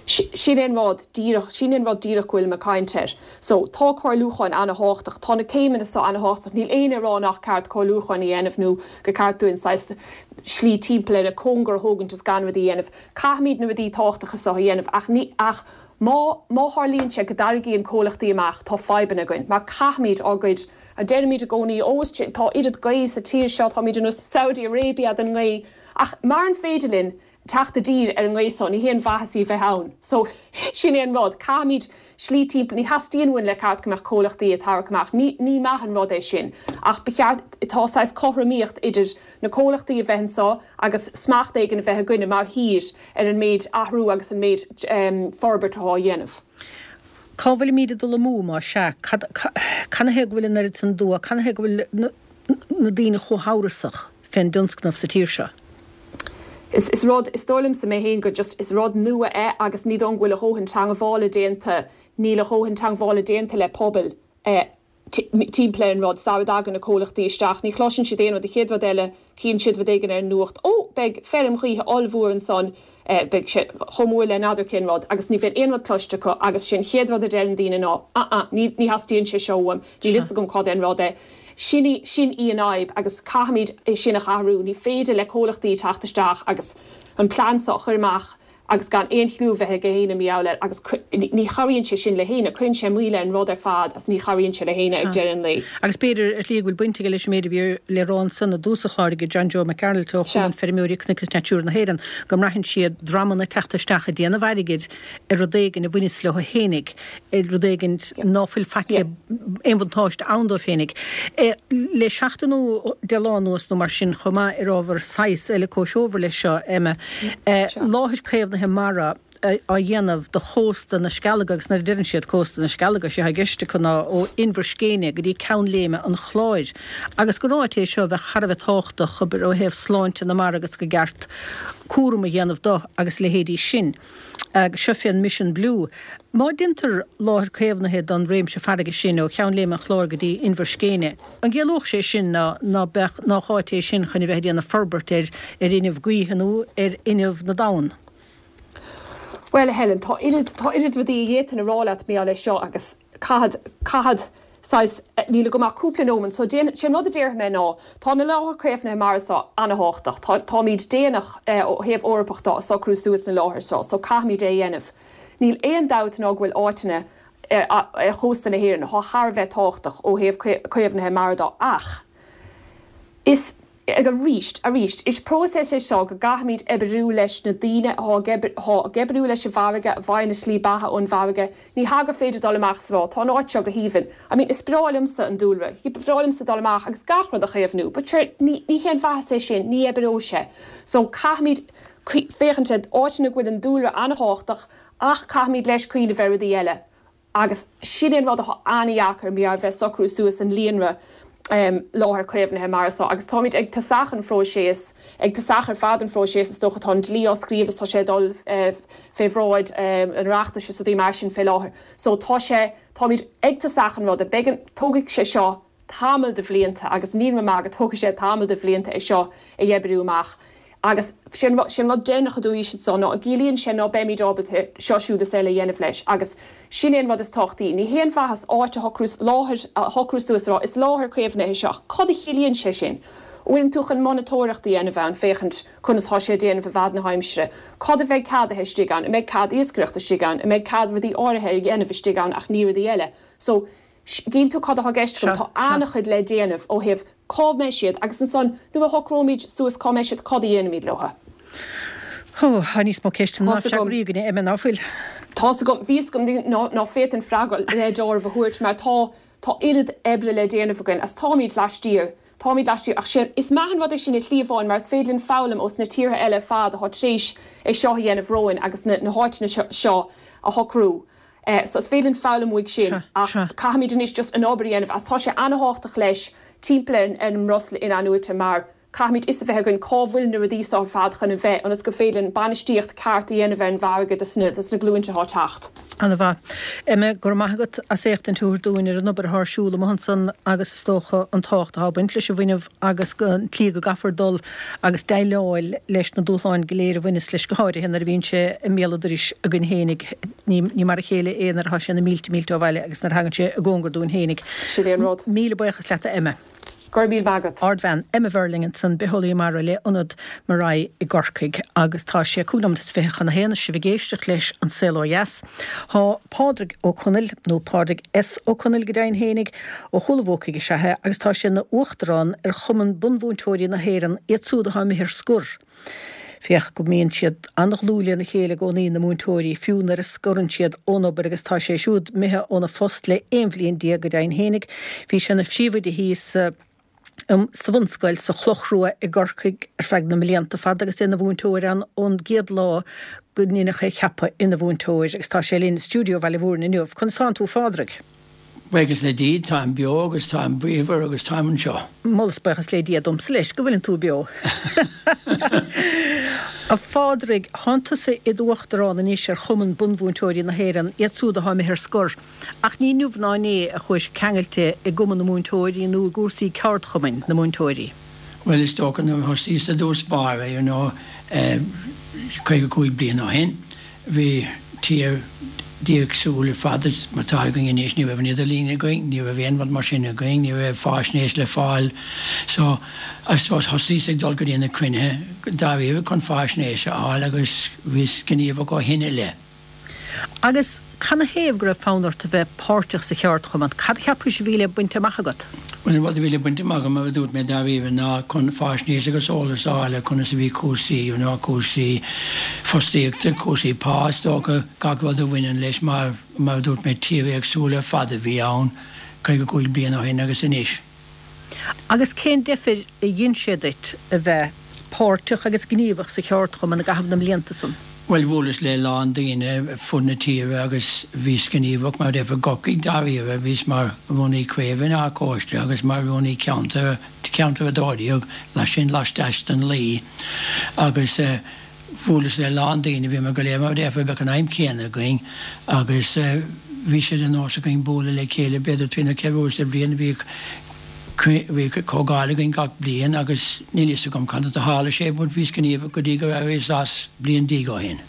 Sin é an rud díreach, sin é an rud díreach go bhfuilim ag caint air. So, tá comhairliúcháin ana-thábhachtach, tá na céimeanna so ana-thábhachtach, níl éinne ag rá nach ceart comhairliúcháin a dhéanamh nó gur ceart dúinn saghas slí timpeall ar an cóngar a thógaint is gan rudaí a dhéanamh. Caithfimid na rudaí tábhachtacha so a dhéanamh ach ní, ach má, má tharlaíonn sé go dtarraingíonn comhlachtaí amach, tá fadhbanna againn mar caithfimid ár gcuid, deirimid i gcónaí, ó is, tá oiread gaoth sa tír seo, táimid ar nós Saudi Arabia den ngaoth ach maran féidir linn teacht i dtír ar an ngaoth so, ní haon mhaitheas í a bheith ann. So, sin é an rud. Caithfimid slí timpeall, ní theastaíonn uainn le ceart go mbeadh comhlachtaí ag tarrac amach. Ní, ní maith an rud é sin. Ach ba cheart, tá saghas cothromaíocht idir na comhlachtaí a bheith anso agus smacht éigin a bheith againne mar thír ar an méid athrú agus an méid forbairt atá á dhéanamh. Cá bhfuilimíd ag dul amú, más ea? Cad, canathaobh go bhfuil an oiread san dua, canathaobh go bhfuil na, na daoine chomh hamhrasach fén dtionscnamh sa tír seo? Is, is rud, is dóigh liomsa mé féin gur just, is rud nua é agus ní dóigh go bhfuil a dhóthain teangmhála déanta, níl a dhóthain teangmhála déanta le pobail eh timpeall ar an rud, sara dtagann na comhlachtaí isteach. Ní chloiseann siad aon rud. An chéad rud eile, cíonn siad rud éigin ar an nuacht, Ó, beidh feirm ghaoithe ollmhór ansan, beidh sé chomh mór le n'fheadar cén rud, agus ní bhíonn aon rud cloiste acu agus sé an chéad rud a deireann daoine ná, Ah-ah, ní, ní theastaíonn sé seo uaim, níl fhios agam cad é an rud é. Sin í, sin í an fhadhb agus caithfimid é sin a athrú. Ní féidir le comhlachtaí teacht isteach agus an plean seo a chur amach agus gan aon chliú a bheith ag éinne mar gheall air agus ní chabhraíonn sé sin le héinne, cuireann sé moill ar an rud ar fad agus ní chabhraíonn sé le héinne ag deireadh an lae. Agus b'fhéidir, ar shlí, go bhfuil baint aige leis an méid a bhí le rá ansan i dtús an chláir ag John Joe Mac Gearailt ó Chumann Feirmeoirí Cnoic is Natura na hÉireann, go mbraitheann siad dreamanna ag teacht isteach ag déanamh airgid ar rud éigin a bhaineas leo fhéinig, ar rud éigin ná fuil faic le aon bhuntáiste ann dóibh féinig. Le seachtain nó 10 lá anuas nó mar sin chomh maith ar ábhar saghas eile comhthreomhar leis seo, Emma, láthair caomhnaithe mara á dhéanamh do chósta na Scealaga agus nuair a deireann siad cósta na Scealaga, sé atá i gceist acu ná ó Inbhir Scéine go dtí Ceann Léime an Chláir agus gur áit é seo a bheadh thar a bheith tábhachtach, abair, ó thaobh sláinte na mara agus go gceart cúram a dhéanamh do agus a leithéidí sin. Agus seo fén Mission Blue. Má deintear láthair caomhnaithe don réimse farraige sin ó Cheann Léime an Chláir go dtí Inbhir Scéine, an gciallódh sé sin ná ná beadh nách áit é sin chun a bheith ag déanamh forbairt ar ar fhuinneamh gaoithe nó ar fhuinneamh na dtonn? Bhuel, a Helen, tá oiread, tá oiread rudaí a d'fhéadfainn a rá leat mar gheall air seo agus caithfead, caithfead saghas, níl agam ach cúpla nóiméad, so déan, sé an rud a déarfaidh mé ná, tá na láthair caomhnaithe mara seo ana-thábhachtach, tá, táimid déanach ó thaobh Eorpach de ag socrú suas na láthair seo, so caithfimid é a dhéanamh. Níl aon dabht ná go bhfuil áiteanna ar, ar chósta na hÉireann atá thar a bheith tábhachtach ó thaobh caomhnaithe mara de ach is, Arís, arís, is próiseas é seo go gcaithfimid oibriú leis na daoine atá ag atá ag oibriú leis an bhfarraige, a bhfaigheann a slí beatha ón bhfarraige. Ní hea gur féidir dul amach is a rá, tá an áit seo go haoibhinn. I mean, is breá liomsa an dúlra. Ba bhreá liomsa dul amach agus gach rud a chaomhnú. But sure, ní, ní haon mhaitheas é sin, ní oibreoidh sé. So, caithfimid féachaint ar áiteanna go bhfuil an dúlra an-thábhachtach ach caithfimid leis cuimhneamh ar rudaí eile. Agus sin é an rud atá an-dheacair, mar bheith socrú suas an líonra láthair caomhnaithe mara seo. Agus táimid ag tosach an phróiseas, ag tosach ar fad an phróiseas is dócha, tá an dlí á scríobh is tá sé ag dul fé bhráid an Oireachtais is rudaí mar sin fé láthair. So tá sé, táimid ag tosach an ruda. Beidh an, tógfaidh sé seo tamall de bhlianta agus níl mé maith go dtógfaidh sé tamall de bhlianta é seo a oibriú amach. Agus sé an sé an rud deireanach a dúirt siad ná an gciallaíonn sé ná beimid ábalta seo siúd is eile a dhéanamh leis agus sin é an rud is tábhachtaí. Ní haon mhaitheas áit a shocrú, láthair a shocrú suas a rá is láthair caomhnaithe seo ach cad a chiallaíonn sé sin? An bhfuileann tú chun monatóireacht a dhéanamh ann féachaint conas tá sé ag déanamh i bhfad na haimsire? Cad a bheidh ceadaithe istigh ann? An mbeidh cead iascaireachta istigh ann? An mbeidh cead rudaí áirithe a dhéanamh istigh ann ach ní rudaí eile? So, Gíonn tú cad atá i gceist agam, tá an-chuid le déanamh ó thaobh cá mbeidh siad agus ansan nuair a shocróimid suas cá mbeidh siad, cad a dhéanfaimid leo. Ó, tá níos mó ceisteanna ná freagraí againne, Emma, ná fuil? Tá's agam, bhí 'fhios agam ná féadfainn freagra le deáramh a thabhairt mar tá, tá oiread oibre le déanamh againn agus táimid laistiar, táimid laistiar ach sé, is maith an rud é sin i shlí amháin mar is féidir linn foghlaim ós na tíortha eile ar fad atá tar éis é seo a dhéanamh romhainn agus na, na háiteanna seo a shocrú. So is féidir linn foghlaim uaidh sin ach caithfimid anois just an obair a dhéanamh agus tá sé ana-thábhachtach leis timpeall ar an mbreosla in-athnuaite mar. Caithfimid fhios a bheith againn cá bhfuil na rudaí seo ar fad chun a bheith ionas gur féidir linn bainistíocht ceart a dhéanamh ar an bhfarraige dos na dos na glúinte atá ag teacht. Ana mhaith. Emma, go raibh maith agat as éachtaint a thabhairt dúinn ar an obair atá ar siúl amuigh ansan agus is dócha an tábhacht atá ag baint leis an bhfuinneamh agus an tslí go gcaithfear dul agus déileáil leis na dúshláin go léir a bhaineas leis go háirithe nuair a bhíonn sé i mbéal an dorais againn fhéinig. Ní ní mar a chéile é nuair atá sé na mílte mílte ó bhaile agus nuair a thagann sé i gcóngar dúinn fhéinig. Sin é an rud. Míle buíochas leat a Emma. Go raibh míle maith agat. Ardbhean, Emma Verling ansan, bitheolaí mara le Ionad MARAE i gCorcaigh agus tá sé 25 nóiméad chun a haon is sibh ag éisteacht leis An Saol Ó Dheas. Tá Pádraig Ó Conaill, nó Pádraig S. Ó Conaill go deimhin fhéinig, ó Chúil an Bhuacaigh is ea é agus tá sé ina Uachtarán ar Chumann Bunmhúinteoirí na hÉireann, iad súd atá imithe ar scor. Féach go mbíonn siad an-dhlúth lena chéile i gcónaí, na múinteoirí, fiú nuair a scorann siad ón obair agus tá sé siúd imithe óna phost le 11 bhliain go deimhin fhéinig. Bhí sé ina phríomhoide thíos sa bhunscoil sa Chloch Rua i gCorcaigh ar feadh na mblianta fada agus é ina mhúinteoir ann ón gcéad lá go ndeineadh é a cheapadh ina mhúinteoir agus tá sé linn i stiúideo Bhaile Mhúirne inniu. Conas tánn tú a Phádraig? Buíochas le Dia, táim beo agus táim bríomhar agus táim anseo. Moladh is buíochas le Dia domsa leis go bhfuileann tú beo. A Phádraig, thánn tusa i d'uachtarán anois ar Chumann Bunmhúinteoirí na hÉireann, iad súd atá imithe ar scor. Ach ní inniu ná inné a chuais ceangailte i gCumann na Múinteoirí nó i gcúrsaí ceardchumainn na múinteoirí. Bhuel, is dócha nuair a thosaíos i dtús báire, you know, 55 bliain ó shin, Bhí tír éagsúil ar fad is mar atá againn anois. Ní raibh an idirlíon againn, ní raibh aon rud mar sin againn, ní raibh fáisnéis le fáil. So, I suppose thosaíos ag dul go dtí na cruinnithe dáiríre chun fáisnéis a fháil agus bhíos gníomhach ó shin i leith. Agus canathaobh go raibh fonn ort a bheith páirteach sa cheardchumann? Cad a cheapais a bhí le baint amach agat? Bhuel, an rud a bhí le baint amach agam, mar a dúirt mé, dáiríre, ná chun faisnéis agus eolas a fháil ar conas a bhí cúrsaí, you know, cúrsaí fostaíochta, cúrsaí pá, is dócha, gach rud a bhaineann leis, mar, mar a dúirt mé, tír éagsúil ar fad a bhí ann 55 bliain ó shin agus anois. Agus cén deifir a dhein sé duit a bheith páirteach agus gníomhach sa cheardchumann i gcaitheamh na mblianta san? Bhuel, bhuaileas le a lán daoine ar fud na tíre agus bhíos gníomhach mar i gCorcaigh dáiríre, bhíos mar rúnaí craoibhe in Áth Cóiste agus mar rúnaí ceantair, ceantar 12, sin laisteas den Laoi agus eh bhuaileas le a lán daoine, bhíomar go léir mar a déarfá, bheadh an aidhm chéanna againn agus eh bhí sé de nós againn bualadh le chéile b'fhéidir trí nó ceithre uair sa bhliain, bhíodh Bhíodh comhdháil againn gach bliain agus níl fhios agam conas a tharla sé but bhíos gníomhach go dtí gur éiríos as bliain déag ó shin.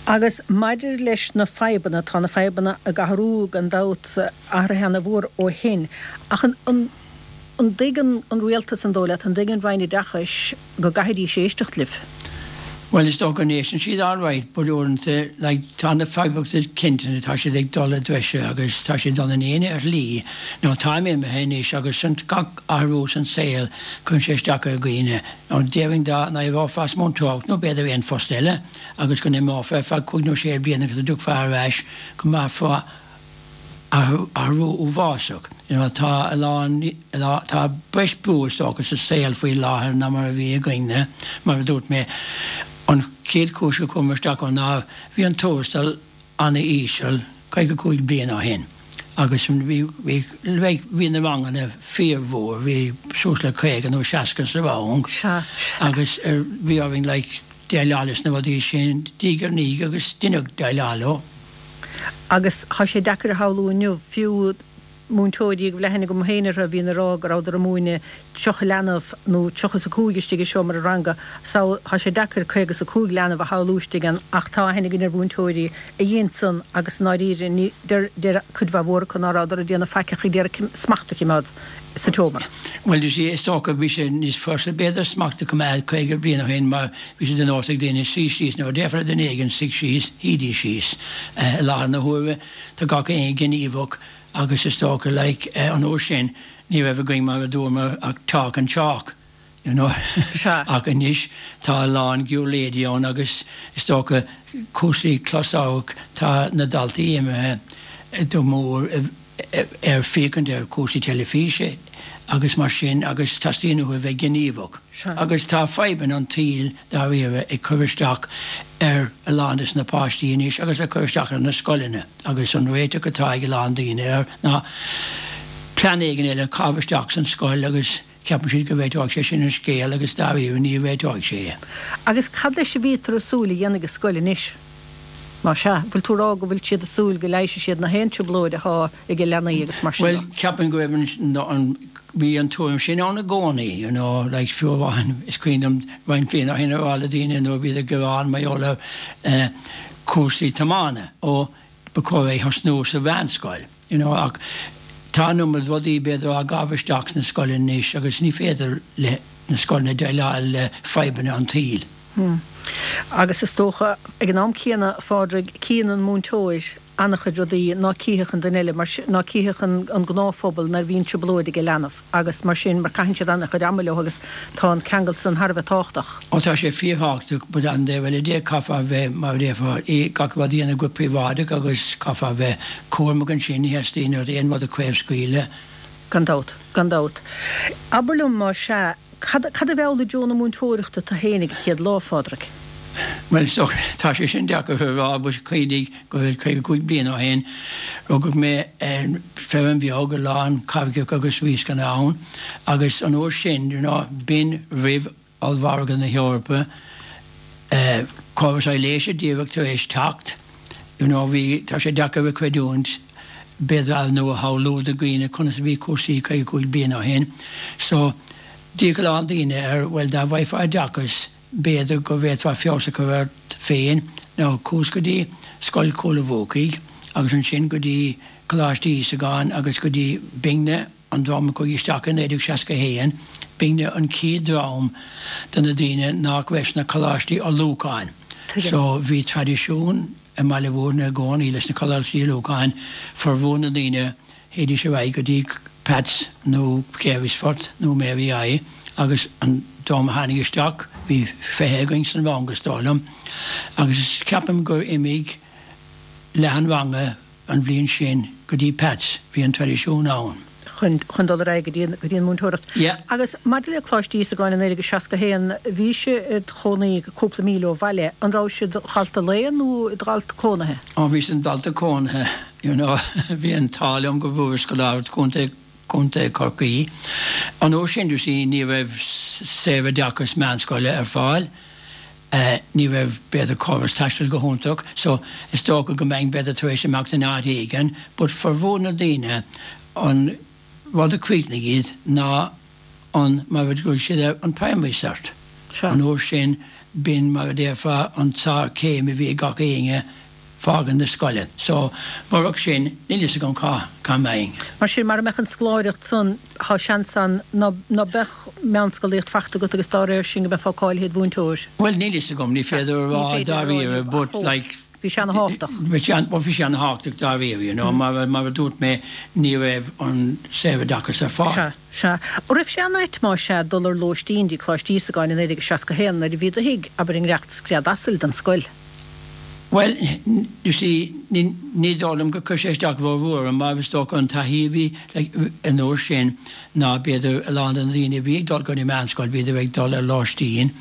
Agus maidir leis na fadhbanna, tá na fadhbanna ag athrú gan dabht, athraithe ana-mhór ó shin, ach an an dtuigeann an rialtas, an dóigh leat, an dtuigeann Roinn Oideachais go gcaithfidís éisteacht libh? Bhuel, is dócha go n-éisteann siad alright but uaireanta, like, tá na fadhbanna cinnte, tá siad ag dul i dtreise agus tá siad ag dul in éine ar shlí. Now táim imithe anois agus san gach athrú san saol cuireann sé isteach ar dhaoine. Now déarfainn dá n-éireofá as múinteoireacht nó b'fhéidir aon phost eile agus go n-imeofá ar feadh cúig nó sé bliana agus go dtiocfá ar ais go mbraithfeá athrú uafásach. You know, tá a lán, tá breis brú is dócha sa saol faoi láthair ná mar a bhí againne. Mar a dúirt mé, an chéad chúis gur chuamar isteach ann ná bhí an tuarastal ana-íseal 55 bliain ó shin agus bhí, bhí, like, bhí na ranganna fíormhór, bhí suas le 50 nó 60 sa rang agus bhí orainn like déileáil leis na rudaí sin diaidh ar ndiaidh agus deineadh déileáil leo. Agus tá sé deacair a shamhlú inniu, fiú múinteoirí go bhfuil aithne agam féin orthu a bhíonn ag rá go rabhadar ag múineadh 30 leanbh nó 30 is 5 istigh i seomra ranga. So, tá sé deacair 50 is 5 leanbh a shamhlú istigh ann ach tá aithne againn ar mhúinteoirí a dhein san agus i ndáiríre ní, deir, deir cuid mhaith mhór acu ná rabhadar ag déanamh faic ach ag iarraidh smacht a choimeád sa tseomra. Bhuel, you see, is dócha bhí sé níos fusa b'fhéidir smacht a choimeád 50 bliain ó shin mar bhí sé de nós ag daoine suí síos nuair a déarfá le duine éigin suigh síos, shuídís síos. I láthair na huaire tá gach éinne gníomhach agus is dócha like an uair sin ní raibh againn mar a dúramar ach talk and chalk, you know ach anois tá a lán giúirléidí ann agus is dócha cúrsaí closamhairc tá na daltaí imithe go mór i ar féachaint ar chúrsaí teilifíse agus mar sin agus teastaíonn uathu a bheith gníomhach. Agus tá fadhbanna an tsaoil dáiríre ag cur isteach ar a lán des na páistí anois agus ag cur isteach ar na scoileanna agus an réiteach atá ag a lán daoine air ná plean éigin eile a chaitheamh isteach san scoil agus. Ceapann siad go réiteoidh sé sin an scéal agus dáiríre ní réiteoidh sé. Agus cad leis a bhítear ag súil a dhéanfaidh an scoil anois? Más ea, bhfuil tú ag rá go bhfuil siad ag súil go leigheasfaidh siad na haon trioblóid athá ag leanaí agus mar sin Bhuel, de? ceapaim go raibh an, bhí an tuairim sin ann i gcónaí, you know, like fiú amháin, is cuimhin liom roinnt bliana ó shin a rá le daoine nuair a bhíodar ag gearán mar gheall ar eh cúrsaí tiomána, ó ba chóir é a thosnú sa mheánscoil, you know, ach tá an iomad rudaí b'fhéidir á gcaitheamh isteach sna scoileanna anois agus ní féidir le na scoileanna déileáil le fadhbanna an tsaoil. Agus is dócha, ag an am céanna, a Phádraig, cíonn an múinteoir an-chuid rudaí ná cífeadh an duine eile, mar ná cífeadh an gnáthphobal nuair a bhíonn trioblóid ag leanbh agus mar sin, mar caitheann siad an-chuid ama leo agus tá an ceangal san thar a bheith tábhachtach. Ó tá sé fíorthábhachtach, but an taobh eile de, caithfear a bheith, mar a déarfá, gach rud a dhéanamh go príobháideach agus caithfear a bheith cúramach ansin, ní theastaíonn uait aon rud a chraobhscaoileadh. Gan dabht, gan dabht. Abair liom, más ea, Cad, cad a mheall i dtreo na múinteoireachta tu fhéin ag an chéad lá, a Phádraig? Bhuel, is dócha, tá sé sin deacair a rá, but cuimhnigh go bhfuil 55 bliain ó shin, rugadh mé ar feirm bheag, a lán carraigeacha agus riascanna ann, agus an uair sin, you know, b'in roimh ollmhargadh na hEorpa, córas aibhléise díreach tar éis teacht, you know, bhí, tá sé deacair a chreidiúint, b'fhéidir, nó a shamhlú do dhaoine conas a bhí cúrsaí 55 bliain ó shin. So, d'fhéach a lán daoine ar, bhuel, dá bhfaighfeá oideachas, b'fhéidir go bhféadfá feabhas a chur ort féin. Now, chuas go dtí Scoil Chúil a' Bhuacaigh agus ansin go dtí Coláiste Íosagáin agus go dtí b'inne an dream a chuaigh isteach i 1961, b'inne an chéad dream de na daoine nach raibh sna coláistí ullmhúcháin. So, bhí traidisiún i mBaile Mhúirne i gcónaí leis na coláistí ullmhúcháin, formhór na ndaoine, théidís ar aghaidh go dtí Peats nó Carysfort nó Mary I agus an dream a tháinig isteach, bhí 20 againn san rang is dóigh liom, agus ceapaim gur imigh leath an ranga an bhliain sin go dtí Peats, bhí an traidisiún ann. chun chun dul ar aghaidh go dtí an go dtí an múinteoireacht. Yeah. Agus maidir le Coláiste Íosagáin i 1961, bhís id chónaí cúpla míle ó bhaile, an rabhais id dhalta lae nó id dhalta cónaithe? Ó bhíos im dhalta cónaithe, you know, bhí an t-ádh liom go bhfuaireas scoláireacht Chontae Chontae Chorcaí. An uair sin, you see, ní raibh saoroideachas meánscoile ar fáil. Ní raibh, b'fhéidir, córas taistil go hiontach so is dócha go mbeinn, b'fhéidir, tar éis imeacht in áit éigin but formhór na daoine, an rud a chríochnaigh iad ná an, mar a ghlaoigh siad air, an primary cert. Sea. An uair sin, b'in, mar a déarfá, an tsárchéim a bhí ag gach éinne. fágaint na scoile. So, murach sin, níl fhios agam cá, cá mbeinn. Mar sin, mara mbeadh an scoláireacht san, thá seans ann ná, ná beadh meánscolaíocht fachta agat agus dá réir sin go mbeifeá cáilithe id mhúinteoir. Bhuel, níl fhios agam, ní féidir a rá dáiríre, but like. Bhí sé ana-thábhachtach. Bhí sé, bhuel bhí sé ana-thábhachtach dáiríre, you know, mar, mar a dúirt mé, ní raibh an saoroideachas ar fáil. Sea, sea. An raibh sé an-ait más ea dul ar lóistín dtí Coláiste Íosagáin i 1961 nuair a bhí do thigh, abair i ngiorracht scread asail don scoil? Bhuel, you see, ní, ní dóigh liom gur chuir sé isteach rómhór orm mar is dócha an taithí a bhí like an uair sin ná b'fhéidir a lán de na daoine a bhí ag dul go dtí meánscoil bhíodar ag dul ar lóistín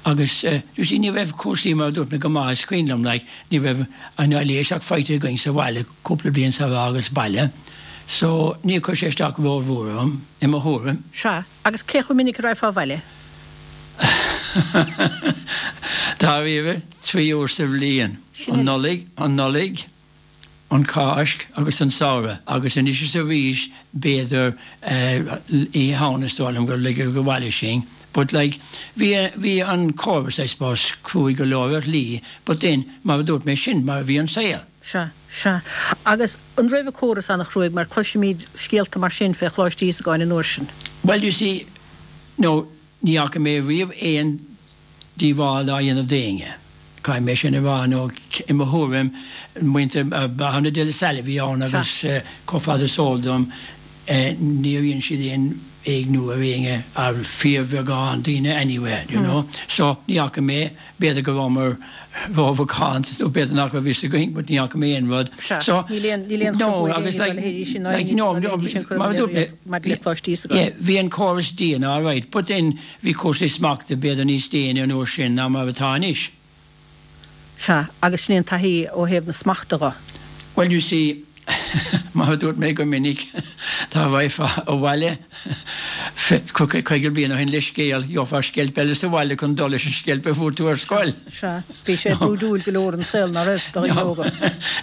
agus eh you see ní raibh cúrsaí mar a dúirt mé go maith is cuimhin liom like ní raibh an aibhléis ach faighte againn sa bhaile cúpla bliain sar a fhágas baile so níor chuir sé isteach rómhór orm i mo thuairim. Sea. Agus cé chomh minic a raghfá abhaile? Dáiríre, 3 uair sa bhliain. An Nollaig, an Nollaig, an Cháisc agus an Samhradh. Agus anois is arís, b'fhéidir Oíche Shamhna is dóigh liom gur ligeadh abhaile sinn. But like, bhí, bhí an córas, I suppose, cruaidh go leor ar shlí, but then, mar a dúirt mé, sin mar a bhí an saol. Sea, sea. Agus an raibh an córas an-chruaidh, mar cloisimíd scéalta mar sin fé Choláiste Íosagáin an uair sin. Well, you see, no, ní fhaca mé riamh aon díobháil á dhéanamh d'éinne. Caithfidh mé sin a rá, nó i mo thuairim, muintir Bhreithiúna de La Salle a bhí ann agus chomh fada is eol dom, níor dhein siad aon éigniú ar éinne, ar fíorbheagán daoine anyway, you know. So, ní fhaca mé, b'fhéidir go rabhamar rómhacánta nó b'fhéidir nach raibh fhios againn but ní fhaca mé aon rud. Sea, So, níl aon, níl aon no, chruthú ag agus éinne dá like, leithéidí sin ná like, aon no, ní dá no, leithéidí sin cur mar a amú dúirt mé, riamh maidir le Coláiste Íosagáin. yeah, bhí an córas dian, alright, but then bhí cúrsaí smachta b'fhéidir níos déine an uair sin ná mar atá anois. Sea, agus sin é an taithí ó thaobh na smachta dho. Well, you see, mar a dúirt mé go minic, dá raghfá abhaile. 50 bliain ó shin le scéal, gheofá sceilp eile sa bhaile chun dul leis an sceilp a fuair tú ar scoil. Sea, bhí sé brúidiúil go leor an saol, ná raibh, do dhaoine óga?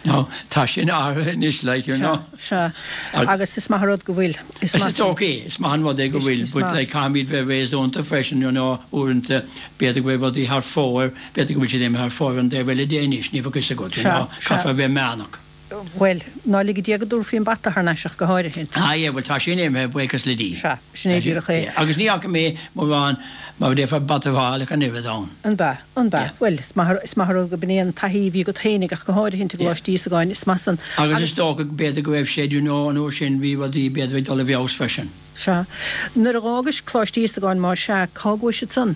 No, tá sin athraithe anois, like, you know. Sea, sea. Agus is maith an rud go bhfuil. Is maith Is ok, is maith an rud é go bhfuil, but like caithfimid bheith réasúnta freisin, you know, uaireanta b'fhéidir go bhfuil rudaí thar fóir, b'fhéidir go bhfuil siad imithe thar fóir an taobh eile de anois, ní bheadh fhios agat, you know, caithfear a bheith meánach. Bhuel, ná lige Dia go dtabharfaí an bata thar n-ais ach go háirithe. Ah yeah, bhuel tá sin imithe, buíochas le Dia. Sea, sin é díreach é. Agus ní fhaca mé mórán, mar a déarfá, bata a fháil ach an oiread ann. An b'ea? An b'ea? Bhuel, is maith, is maith an rud go b'in é an taithí a bhí agat fhéinig ach go háirithe i gColáiste Íosagáin, is maith san. Agus is dócha, b'fhéidir go raibh sé, you know, an uair sin bhí rudaí b'fhéidir ag dul i bhfeabhas freisin. Sea. Nuair a dh'fhágais Coláiste Íosagáin, má sea, cá gcuais ansan?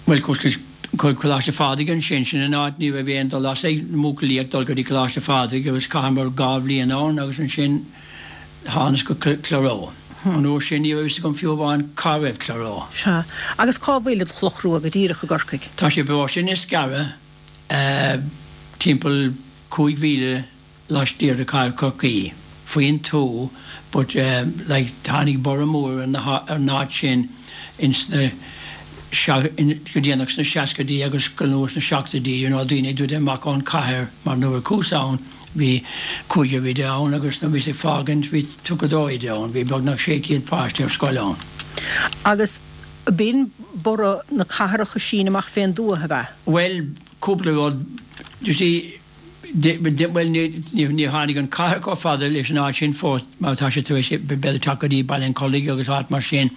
Bhuel, chuas go Coláiste Phádraig ansin, sin an áit, ní raibh aon dul as ag na buachaillí ach dul go dtí Coláiste Phádraig agus chaitheamar 2 bhliain ann agus ansin thánas go Cloghroe. An uair sin ní raibh fhios agam fiú amháin cá raibh Cloghroe. Sea. Agus cá bhfuil an Chloch Rua go díreach i gCorcaigh? Tá sé i bparóiste Inniscarra, timpeall 5 mhíle laistiar de chathair Chorcaí, faoin tuath, but like tháinig borradh mór ar an áit sin ins na go déanach sna seascaidí agus go luath sna seachtóidí, you know, daoine ag druidim amach ón chathair mar nuair a chuas ann bhí cúigear oide ann agus nuair a bhíos ag fágaint bhí 32 oide ann, bhí beagnach 600 páiste ar scoil ann. Agus b'in borradh na cathrach ag síneadh amach fén dtuath, ab ea? Bhuel, cúpla rud, you see, Bhuel, níor tháinig an chathair chomh fada leis an áit sin fós mar tá sé tar éis b'fhéidir teacht go dtí Baile an Chollaigh agus áit mar sin.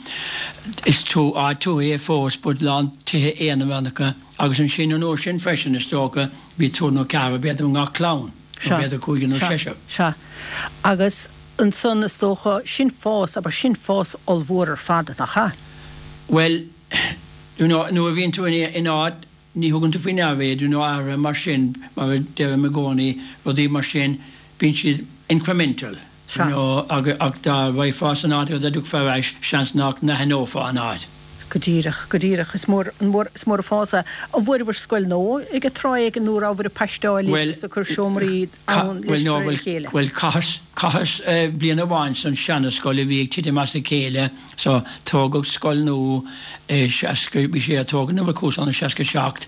Is áit tuaithe é fós but lán tithe aonaránacha agus ansin an uair sin freisin is dócha bhí triúr nó ceathrar b'fhéidir i ngach clann nó b'fhéidir cúigear nó seisear. Sea. Agus ansan is dócha, sin fás, abair, sin fás ollmhór ar fad, nach ea? Bhuel, you know, nuair a bhíonn tú in áit Ní thugann tú faoi ndeara iad, you know, athruithe mar sin, mar a deirim i gcónaí, rudaí mar sin, bíonn siad incremental, you know, ach dá raghfá san áit agus dá dtiocfá ar ais, seans nach n-aithneofá an áit. Go díreach, go díreach. Is mór, an mór, is mór an fás é. An bhfuaireabhair scoil nua ag an tráth éigin nó rabhabhair ag paisteáil Bhuel, agus ag cur seomraí ann bhuel, leis de no, réir a bhuel, chéile? bhuel, chaitheas, chaitheas bliain amháin san seana-scoil a bhí ag titim as a chéile, So, tógadh scoil nua i 60, bhí sé á tógaint nuair a chuas ann i 67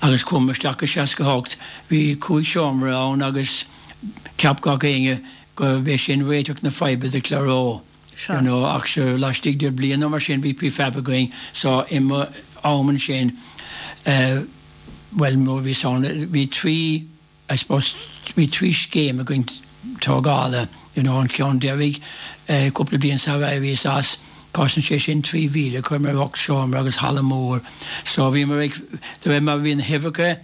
agus chuamar isteach i 68. Bhí cúig seomra ann agus cheap gach éinne gurbh é sin réiteach na faidhbe do Cloghroe, you know, ach sure laistigh de bliain nó mar sin bhí prefab againn so i mo am ansin, eh, bhuel nuair a bhíos ann bhí trí, I suppose bhí trí scéim againn tógála, you know, an ceann deiridh cúpla bliain sar éiríos as, chosain sé sin 3,000, chuireamar 8 seomra agus halla mór. So bhíomar ag, de réir mar a bhí na huimhreacha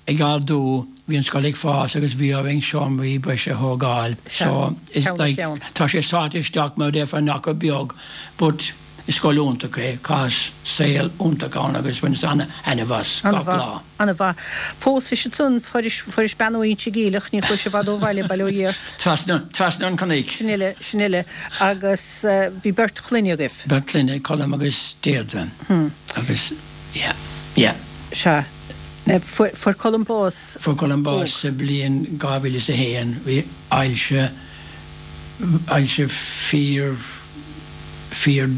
ag ardú, bhí an scoil ag fás agus bhí orainn seomraí breise a thógáil. So it's like, tá sé sáite isteach mar a déarfá in achar beag but, Is scoil iontach é, chaitheas saol iontach ann agus bhaineas ana-thaitneamh as gach lá. An-mhaith. Phósais ansan, fuairis bean ó Inse Geimhleach, ní chuais i bhfad ó bhaile, bail ó Dhia ort. Trasna, trasna an chnoic. Sin uile, sin uile. Agus bhí beirt chlainne agaibh. Beirt clainne, Colm agus Deirdre. Agus, yeah, yeah. Sea. Fuair Colm bás Fuair Colm bás sa bhliain 2001. Bhí ailse. ailse fíor, fíor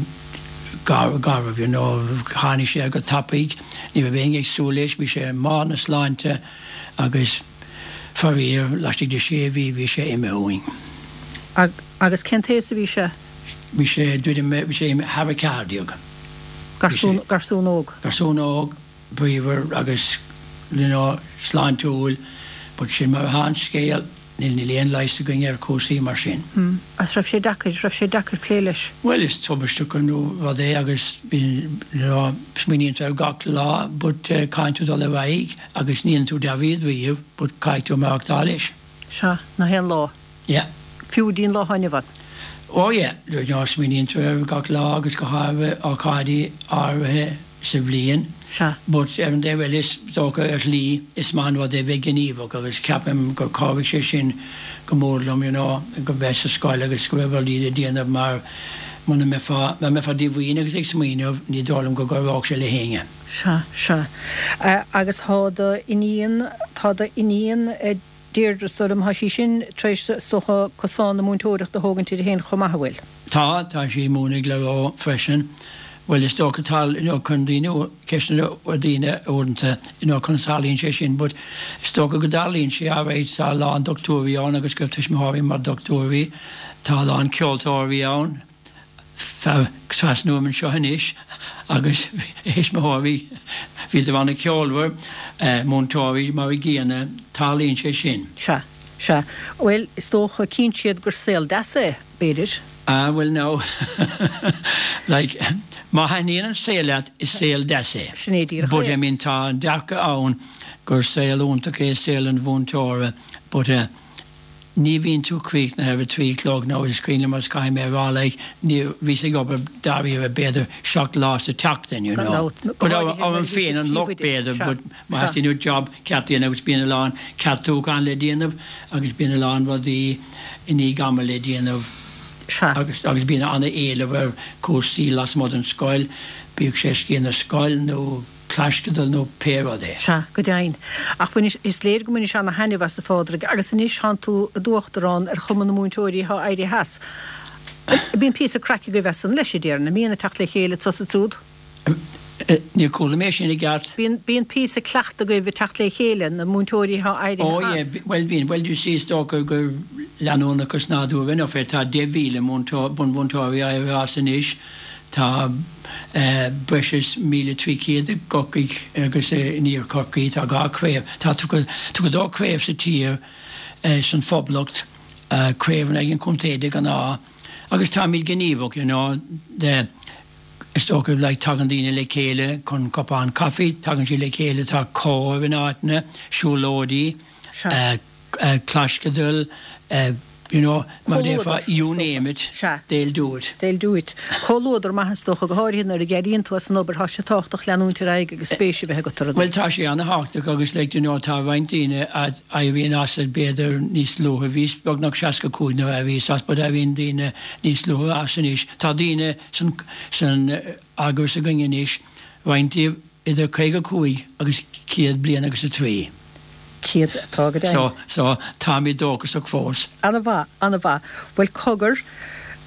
garbh, you know. Tháinig sé go tapaidh, ní raibh éinne ag súil leis, bhí sé i mbarr na sláinte agus faraor, laistigh de sé mhí bhí sé imithe uainn. Agus cén t-aos a bhí sé? Bhí sé, druidim, bhí sé thar 14. Garsún, garsún óg. Garsún óg, bríomhar agus, you know, sláintiúil, but sin mar atá an scéal. Níl aon leigheas againn ar chúrsaí mar sin. Hm. Agus raibh sé deacair, raibh sé deacair plé leis? Bhuel, is tubaisteach an rud é agus you know, smaoiníonn tú air gach lá but caithfidh tú dul ar aghaidh agus ní dhéanann tú dearúd riamh but caithfidh tú maireachtáil leis. Sea, nach aon lá. Yeah. Fiú go dtí an lá atá inniu ann. Oh yeah, you know, smaoiníonn tú air gach lá agus go háirithe ócáidí áirithe. sa bhliain. Sea. But ar an dtaobh eile, is dócha, ar shlí, is maith an rud é bheith gníomhach agus ceapaim gur chabhraigh sé sin go mór liom, you know, go bheith sa scoil agus go raibh rudaí le déanamh mar muna mbeifeá, mura mbeifeá díomhaoin agus ag smaoineamh, ní dóigh liom go gcabhródh sé le héinne. Sea, sea. Agus tá do iníon, tá do iníon Deirdre, is dóigh liom, tá sí sin tar éis, is dócha, cosán na múinteoireachta a thógaint uirthi féin chomh maith, an bhfuil? Tá, tá sí ag múineadh i gClaró freisin. Bhuel, is dócha tá, you know, cuireann daoine ceisteanna ar daoine uaireanta, you know, conas a tharlaíonn sé sin, but is dócha go dtarlaíonn sé, alright, tá a lán dochtúirí ann agus go raibh tuismitheoirí mar dochtúirí, tá a lán ceoltóirí ann, fear trasna uaim anseo anois agus a thuismitheoirí, bhíodar an-cheolmhar, múinteoirí mar a gcéanna, tarlaíonn sé sin. Sea, sea. Bhuel, is dócha, cíonn siad gur saol deas é. b'fhéidir. Ah, bhuel now, like, má thaitníonn an saol leat, is saol deas é. Sin é díreach But, é. I mean, tá an dearcadh ann gur saol iontach é saol an mhúinteora, but eh, ní bhíonn tú críochnaithe ar a trí a chlog now, is cuimhin liom agus caithfidh mé a rá, like, ní, bhíos ag obair dáiríre b'fhéidir seacht lá sa tseachtain, you Gan know. dabht, go But háirithe orm nuair a bhí féin siad an locht príomhoide, b'fhéidir, sea, but má sea. theastaíonn uait job ceart a dhéanamh agus bíonn a lán ceartúchán le déanamh agus bíonn a lán rudaí, i ndiaidh ama le déanamh Sea. agus agus bíonn an-éileamh ar chúrsaí lasmuigh den scoil, bíodh sé Sciath na Scol nó claisceadal nó pé rud é. Sea, go deimhin. Ach bhainis, is léir go mbainis ana-thaitneamh as, a Phádraig, agus anois tánn tú i d'uachtarán ar Chumann na Múinteoirí atá éirithe as. Bíonn píosa craic agaibh as san leis, a déarfainn, an mbíonn ag teacht le chéile anso is ansiúd? Níor chuala mé sin i gceart. Bíonn, bíonn píosa cleachta agaibh ag teacht le chéile, na múinteoirí atá éirithe Oh yeah, as. bhuel bíonn, bhuel you see is dócha gur leanúnachas nádúrtha enough é, tá 10,000 múinteoir, bunmhúinteoirí éirithe as anois, tá breis is 1,300 i gCorcaigh agus in Iar Chorcaí, tá dhá chraobh, tá 32 craobh sa tír, san Phoblacht, craobh in aghaidh an chontae de ghnáth, agus táimid gníomhach, you know, de. Is dócha, like, tagann daoine le chéile chun cupán caife, tagann siad le chéile, tá cóir in áiteanna, siúlóidí, claisceadail, you know, mar a déarfá, you name it, they'll do it. They'll do it. Comhluadar maith is dócha, go háirithe nuair a d'éiríonn tú as an obair, tá sé tábhachtach leanúint ar aghaidh agus spéis a bheith agat i rudaí. Bhuel, tá sé ana-thábhachtach agus like, you know, tá roinnt daoine a éiríonn as b'fhéidir níos luaithe, bhíos beagnach 65 nuair a éiríos as but éiríonn daoine níos luaithe as anois. Tá daoine san san eagras againn anois, roinnt díobh idir 55 agus 100 bliain agus 3. 100 atá go deimhin. So, so, táimid dóchasach fós. Ana-mhaith, ana-mhaith. Bhuel, cogar,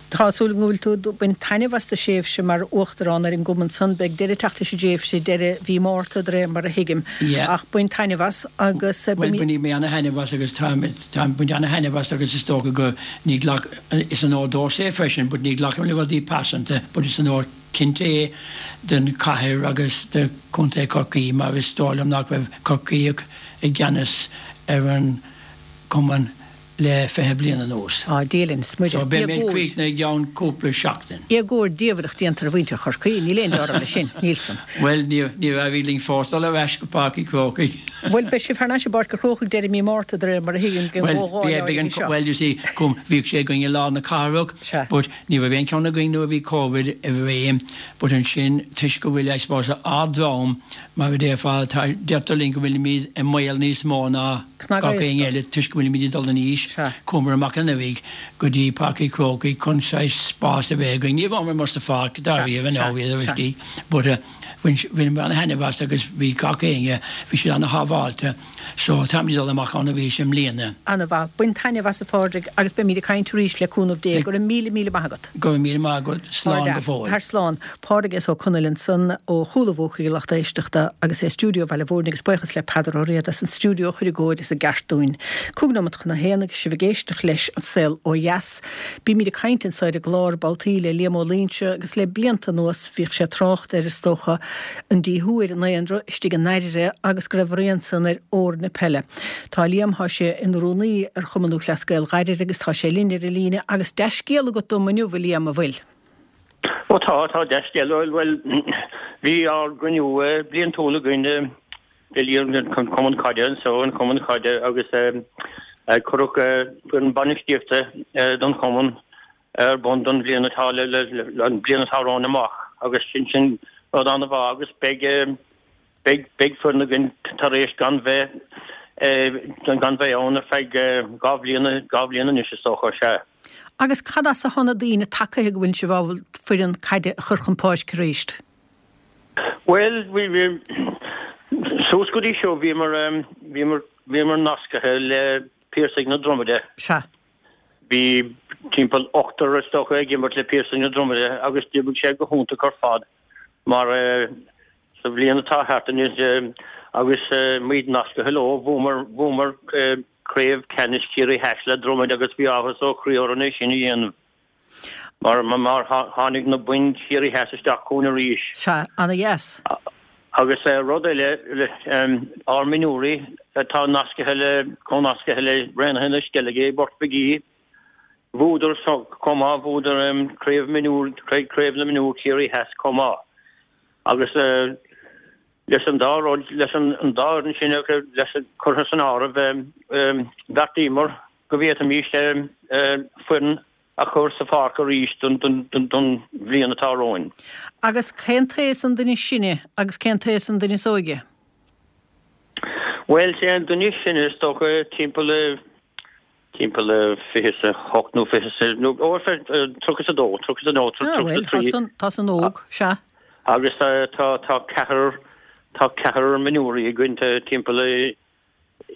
tá súil agam go bhfuil tú ag baint taitneamh as do thréimhse mar Uachtarán ar an gcumann san. Beidh deireadh ag teacht leis an dtréimhse deireadh mhí Márta, de réir mar a thuigim. Yeah. Ach bain taitneamh as agus. Bhuel, bainfidh mé ana-thaitneamh as agus táim, táim ag baint ana-thaitneamh as agus is dócha go, ní ghlac, Is onóir domhsa é freisin but ní ghlacaim le rudaí pearsanta but is onóir cinnte é don chathair agus do Chontae Chorcaí mar is dóigh liom nach raibh Corcaíoch i gceannas ar an gcumann le 20 bliain anuas. Á, Dia linn 's Muire. So beidh mé críochnaithe i gceann cúpla seachtain. Éagóir diamhrach déanta ar mhuintir Chorcaí, níl aon dealramh leis sin, níl san. Bhuel, níor éirigh linn fós dul ar ais go Páirc an Chrócaigh. Bhuel, beidh sibh thar n-ais i bPáirc an Chrócaigh deireadh mí Márta, de réir mar a thuigim, den Bhuel, bhí, beidh an, bhuel, you see, cum, bhíodh sé againn i lár na cathrach, Sea. but ní raibh aon cheann againn nuair a bhí Covid i réim, but ansin, toisc go bhfuil, I suppose, ár ndream, mar a déarfá, tá, deirtear linn go bhfuilimid i mbaol níos mó ná gach éinne eile toisc go bhfuilimid ag dul in aois, Sea. chuamar amach anuraidh go dtí Páirc an Chrócaigh chun saghas spás a bheith againn. Ní rabhamar amuigh sa pháirc, dáiríre, Sea, no, sea, bhíodar sea. istigh, but eh, Bhain bhaineamar ana-thaitneamh as agus bhí gach éinne, bhí siad ana-shábháilte so táimid ag dul amach ann arís i mbliana. Ana-mhaith. Bain taitneamh as a Phádraig agus beimid ag caint arís le cúnamh Dé. Go raibh míle míle maith agat. Go raibh míle maith agat. Slán go fóill. Tar slán. Pádraig S. Ó Conaill ansan ó Chúil a' Bhuacaigh a lucht éisteachta agus é i stiúideo Bhaile Mhúirne agus buíochas le Peadar Ó Riada as an stiúideo a chur i gcóir is i gceart dúinn. Cúig nóimeat chun a haon agus sibh ag éisteacht leis An Saol Ó Dheas. Bímid ag caint anso ar an gclár babhtaí le Liam Ó Loingsigh agus le blianta anuas bhíodh sé ag trácht ar, is dócha, an díothú ar an ndaonra istigh i nDairire agus go raibh a rian san ar fhoirne peile. Tá Liam, tá sé ina rúnaí ar Chumann Lúthchleas Gael Dhairire agus tá sé linn ar an líne agus dea-scéal agat dom inniu, a Liam, an bhfuil? Ó tá, tá dea-scéal. Bhuel, bhí ár gcruinniú bliantúil againn an Cumann Caide anso, an Cumann Caide agus cuireadh foireann bainistíochta don chumann ar bun don bhliain atá le an bliain atá romhainn amach agus sin sin rud an-mhaith agus beidh beidh beidh foireann againn tar éis gan bheith gan bheith ann ar feadh dhá bhliain dhá bhliain anois is dócha, sea. Agus cad as atá na daoine tagaithe go bhfuil sibh ábalta foireann caide a chur chun páirce arís? Bhuel, bhí, bhí, suas go dtí seo bhíomar, bhíomar, bhíomar nascaithe le Piarsaigh na Dromaide. Sea. Bhí timpeall ochtar is dócha ag imirt le Piarsaigh na Dromoda agus d'oibrigh sé go hiontach ar fad mar sa bhliain atá thart anois agus muid nascaithe leo bhuamar bhuamar craobh ceannais Chiarraí Theas le Dromaid agus bhí áthas ó chroí orainn é sin a dhéanamh mar mar tháinig na boinn Chiarraí Theas isteach chugainn arís. Sea, ana-dheas. Agus rud eile, ár mionúirí atá nascaithe le, comhnascaithe le Raonaithe na Sceilge i bPort Mhig Aoidh, bhuadar chomh maith, bhuadar craobh mionúr, craobh na mionúr Chiarraí Theas chomh maith. Agus leis an dá rud, leis an dá fhoireann sin leis, curtha san áireamh, bheartaíomar go bhféadfaimis foireann a chur sa pháirc arís don bhliain atá romhainn. Agus cén t-aos an duine is sine agus cén t-aos an duine is óige? Bhuel, sé an duine is sine is dócha timpeall timpeall 28 nó 20 nó ó 32, 32, 33. Ah bhuel, tá san, tá san óg, sea. Agus tá tá ceathrar tá ceathrar mionúirí againn timpeall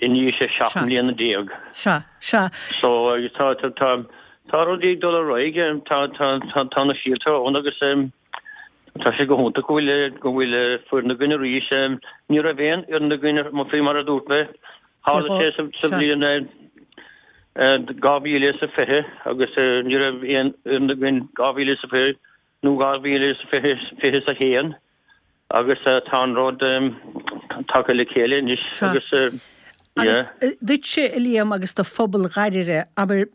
in aois 17 mbliana. Sea, sea. So, tá, tá, tá, tá rudaí ag dul ar aghaidh, tá, tá, tá, tá na síolta ann agus tá sé go hiontach go bhfuil, go bhfuil foireann againn arís. Ní raibh aon fhoireann againn, faoi mar a dúirt mé, tharla sé sa, sa bhliain 2020 agus ní raibh aon fhoireann againn 2020 nó 2021. Agus tá an rud tagtha le chéile anois agus yeah. Agus duitse, a Liam, agus do phobal Dhoire, abair,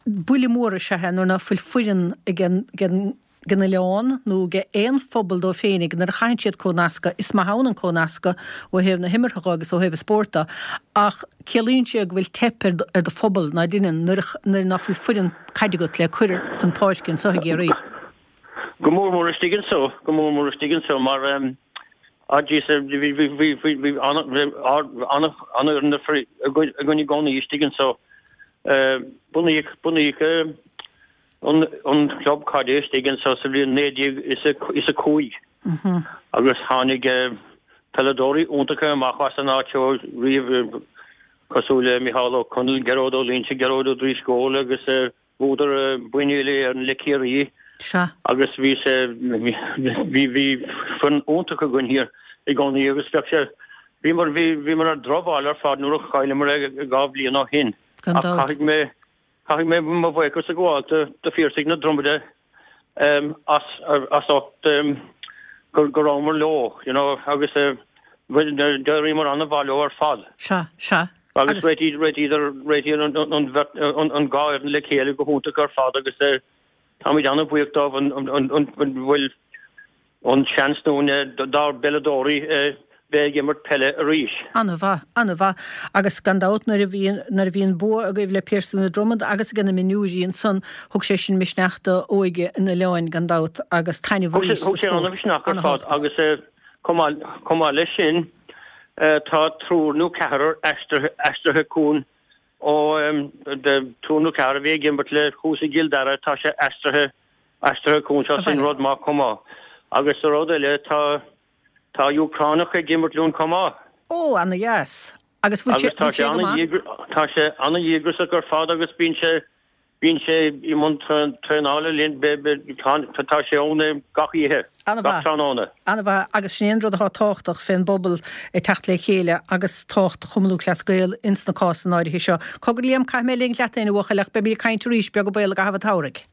buille mór is ea é nuair ná fuil foireann ag an oileán nó ag aon phobal dóibh féinig nuair a chaitheann siad comhnascadh, is maith ann an comhnascadh ó thaobh na himeartha dho agus ó thaobh an spóirt do, ach ciallaíonn sé go bhfuil teip ar do phobal ná deineann nuair ná fuil foireann caide agat le cur chun páirce anso i gCiarraí. Go mór mór istigh anso, go mór mór istigh anso mar ah jeez bhí bhí bhí bhí bhí an-fhoireann againn i gcónaí istigh anso. Bunaíodh bunaíodh an an club caide istigh anso sa bhliain 1905 agus tháinig peileadóirí iontacha amach as an áit seo riamh cosúil le Micheál Ó Conaill, Gearóid Ó Loingsigh, Gearóid Ó Drisceoil agus Bhuadar boinn uile-Éireann le Ciarraí Sea. agus bhí sé, bhí, bhí foireann iontach againn thiar i gcónaí agus bheadh sé, bhíomar, bhí, bhíomar ar drochbhail ar fad nuair a chailleamar é 2 bhliain ó shin. Gan Ach dabht. caithfidh mé, caithfidh mé mo bhuíochas a ghabháil do, do Phiarsaigh na Dromoda as, as ucht go, go rabhamar leo, you know, agus d'éiríomar an-mhaith leo ar fad. Sea, sea. Agus réitíodar an dhá fhoireann le chéile go hiontach ar fad agus táimid an-bhuíoch dóibh an bhfuil an seans dúinn dár bpeileadóirí bheith ag imirt peile arís. An-mhaith, an-mhaith. Agus gan dabht nuair a bhí, nuair a bhí an bua agaibh le Piarsaigh na Dromad agus ag na mionúirí ansan, thug sé sin misneach do óige an oileáin gan dabht agus taitneamh arís sa spórt. Thug sé an-mhisneach ar fad agus chomh maith leis sin, Tá triúr nó ceathrar aistrithe chugainn ó triúr nó ceathrar a bhí ag imirt le thuas i gCill Dara, tá sé aistrithe aistrithe chugainn seo, sin rud maith chomh maith. Agus rud eile, tá tá Úcránach ag imirt linn chomh maith. Ó, ana dheas. Agus bhfuil sé bhfuil sé go maith? Tá sé ana-dhíograiseach ar fad agus bíonn sé Bíonn sé i mbun traenála linn, tá sé ann gach oíche, gach tráthnóna. An-mhaith, agus sin é an rud atá tábhachtach fén bpobal ag teacht le chéile agus tábhacht Chumann Lúthchleas Gael ins na cásanna áirithe seo. Cogar Liam, caithfidh mé a ligint leat féin a bhuachaill ach beimid ag caint arís, beag an baol i gcaitheamh an tsamhraidh.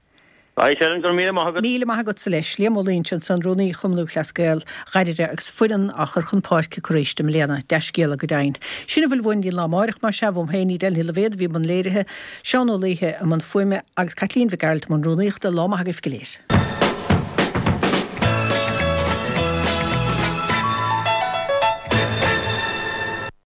Right, Helen, go raibh míle maith agat. Míle maith agatsa leis. Liam Ó Loingsigh ansan, Rúnaí Chumann Lúthchleas Gael Dhoire agus foireann á chur chun páirce acu arís i mbliana. Dea-scéala go deimhin. Sin a bhfuil uainn don lá amáireach, más ea, uaim féin, Edel Ní Loibhéad a bhí i mbun léirithe, Seán Ó Laoithe i mbun fuaime agus Caitlín Mhic Gearailt i mbun rúnaíochta. Lá maith agaibh go léir.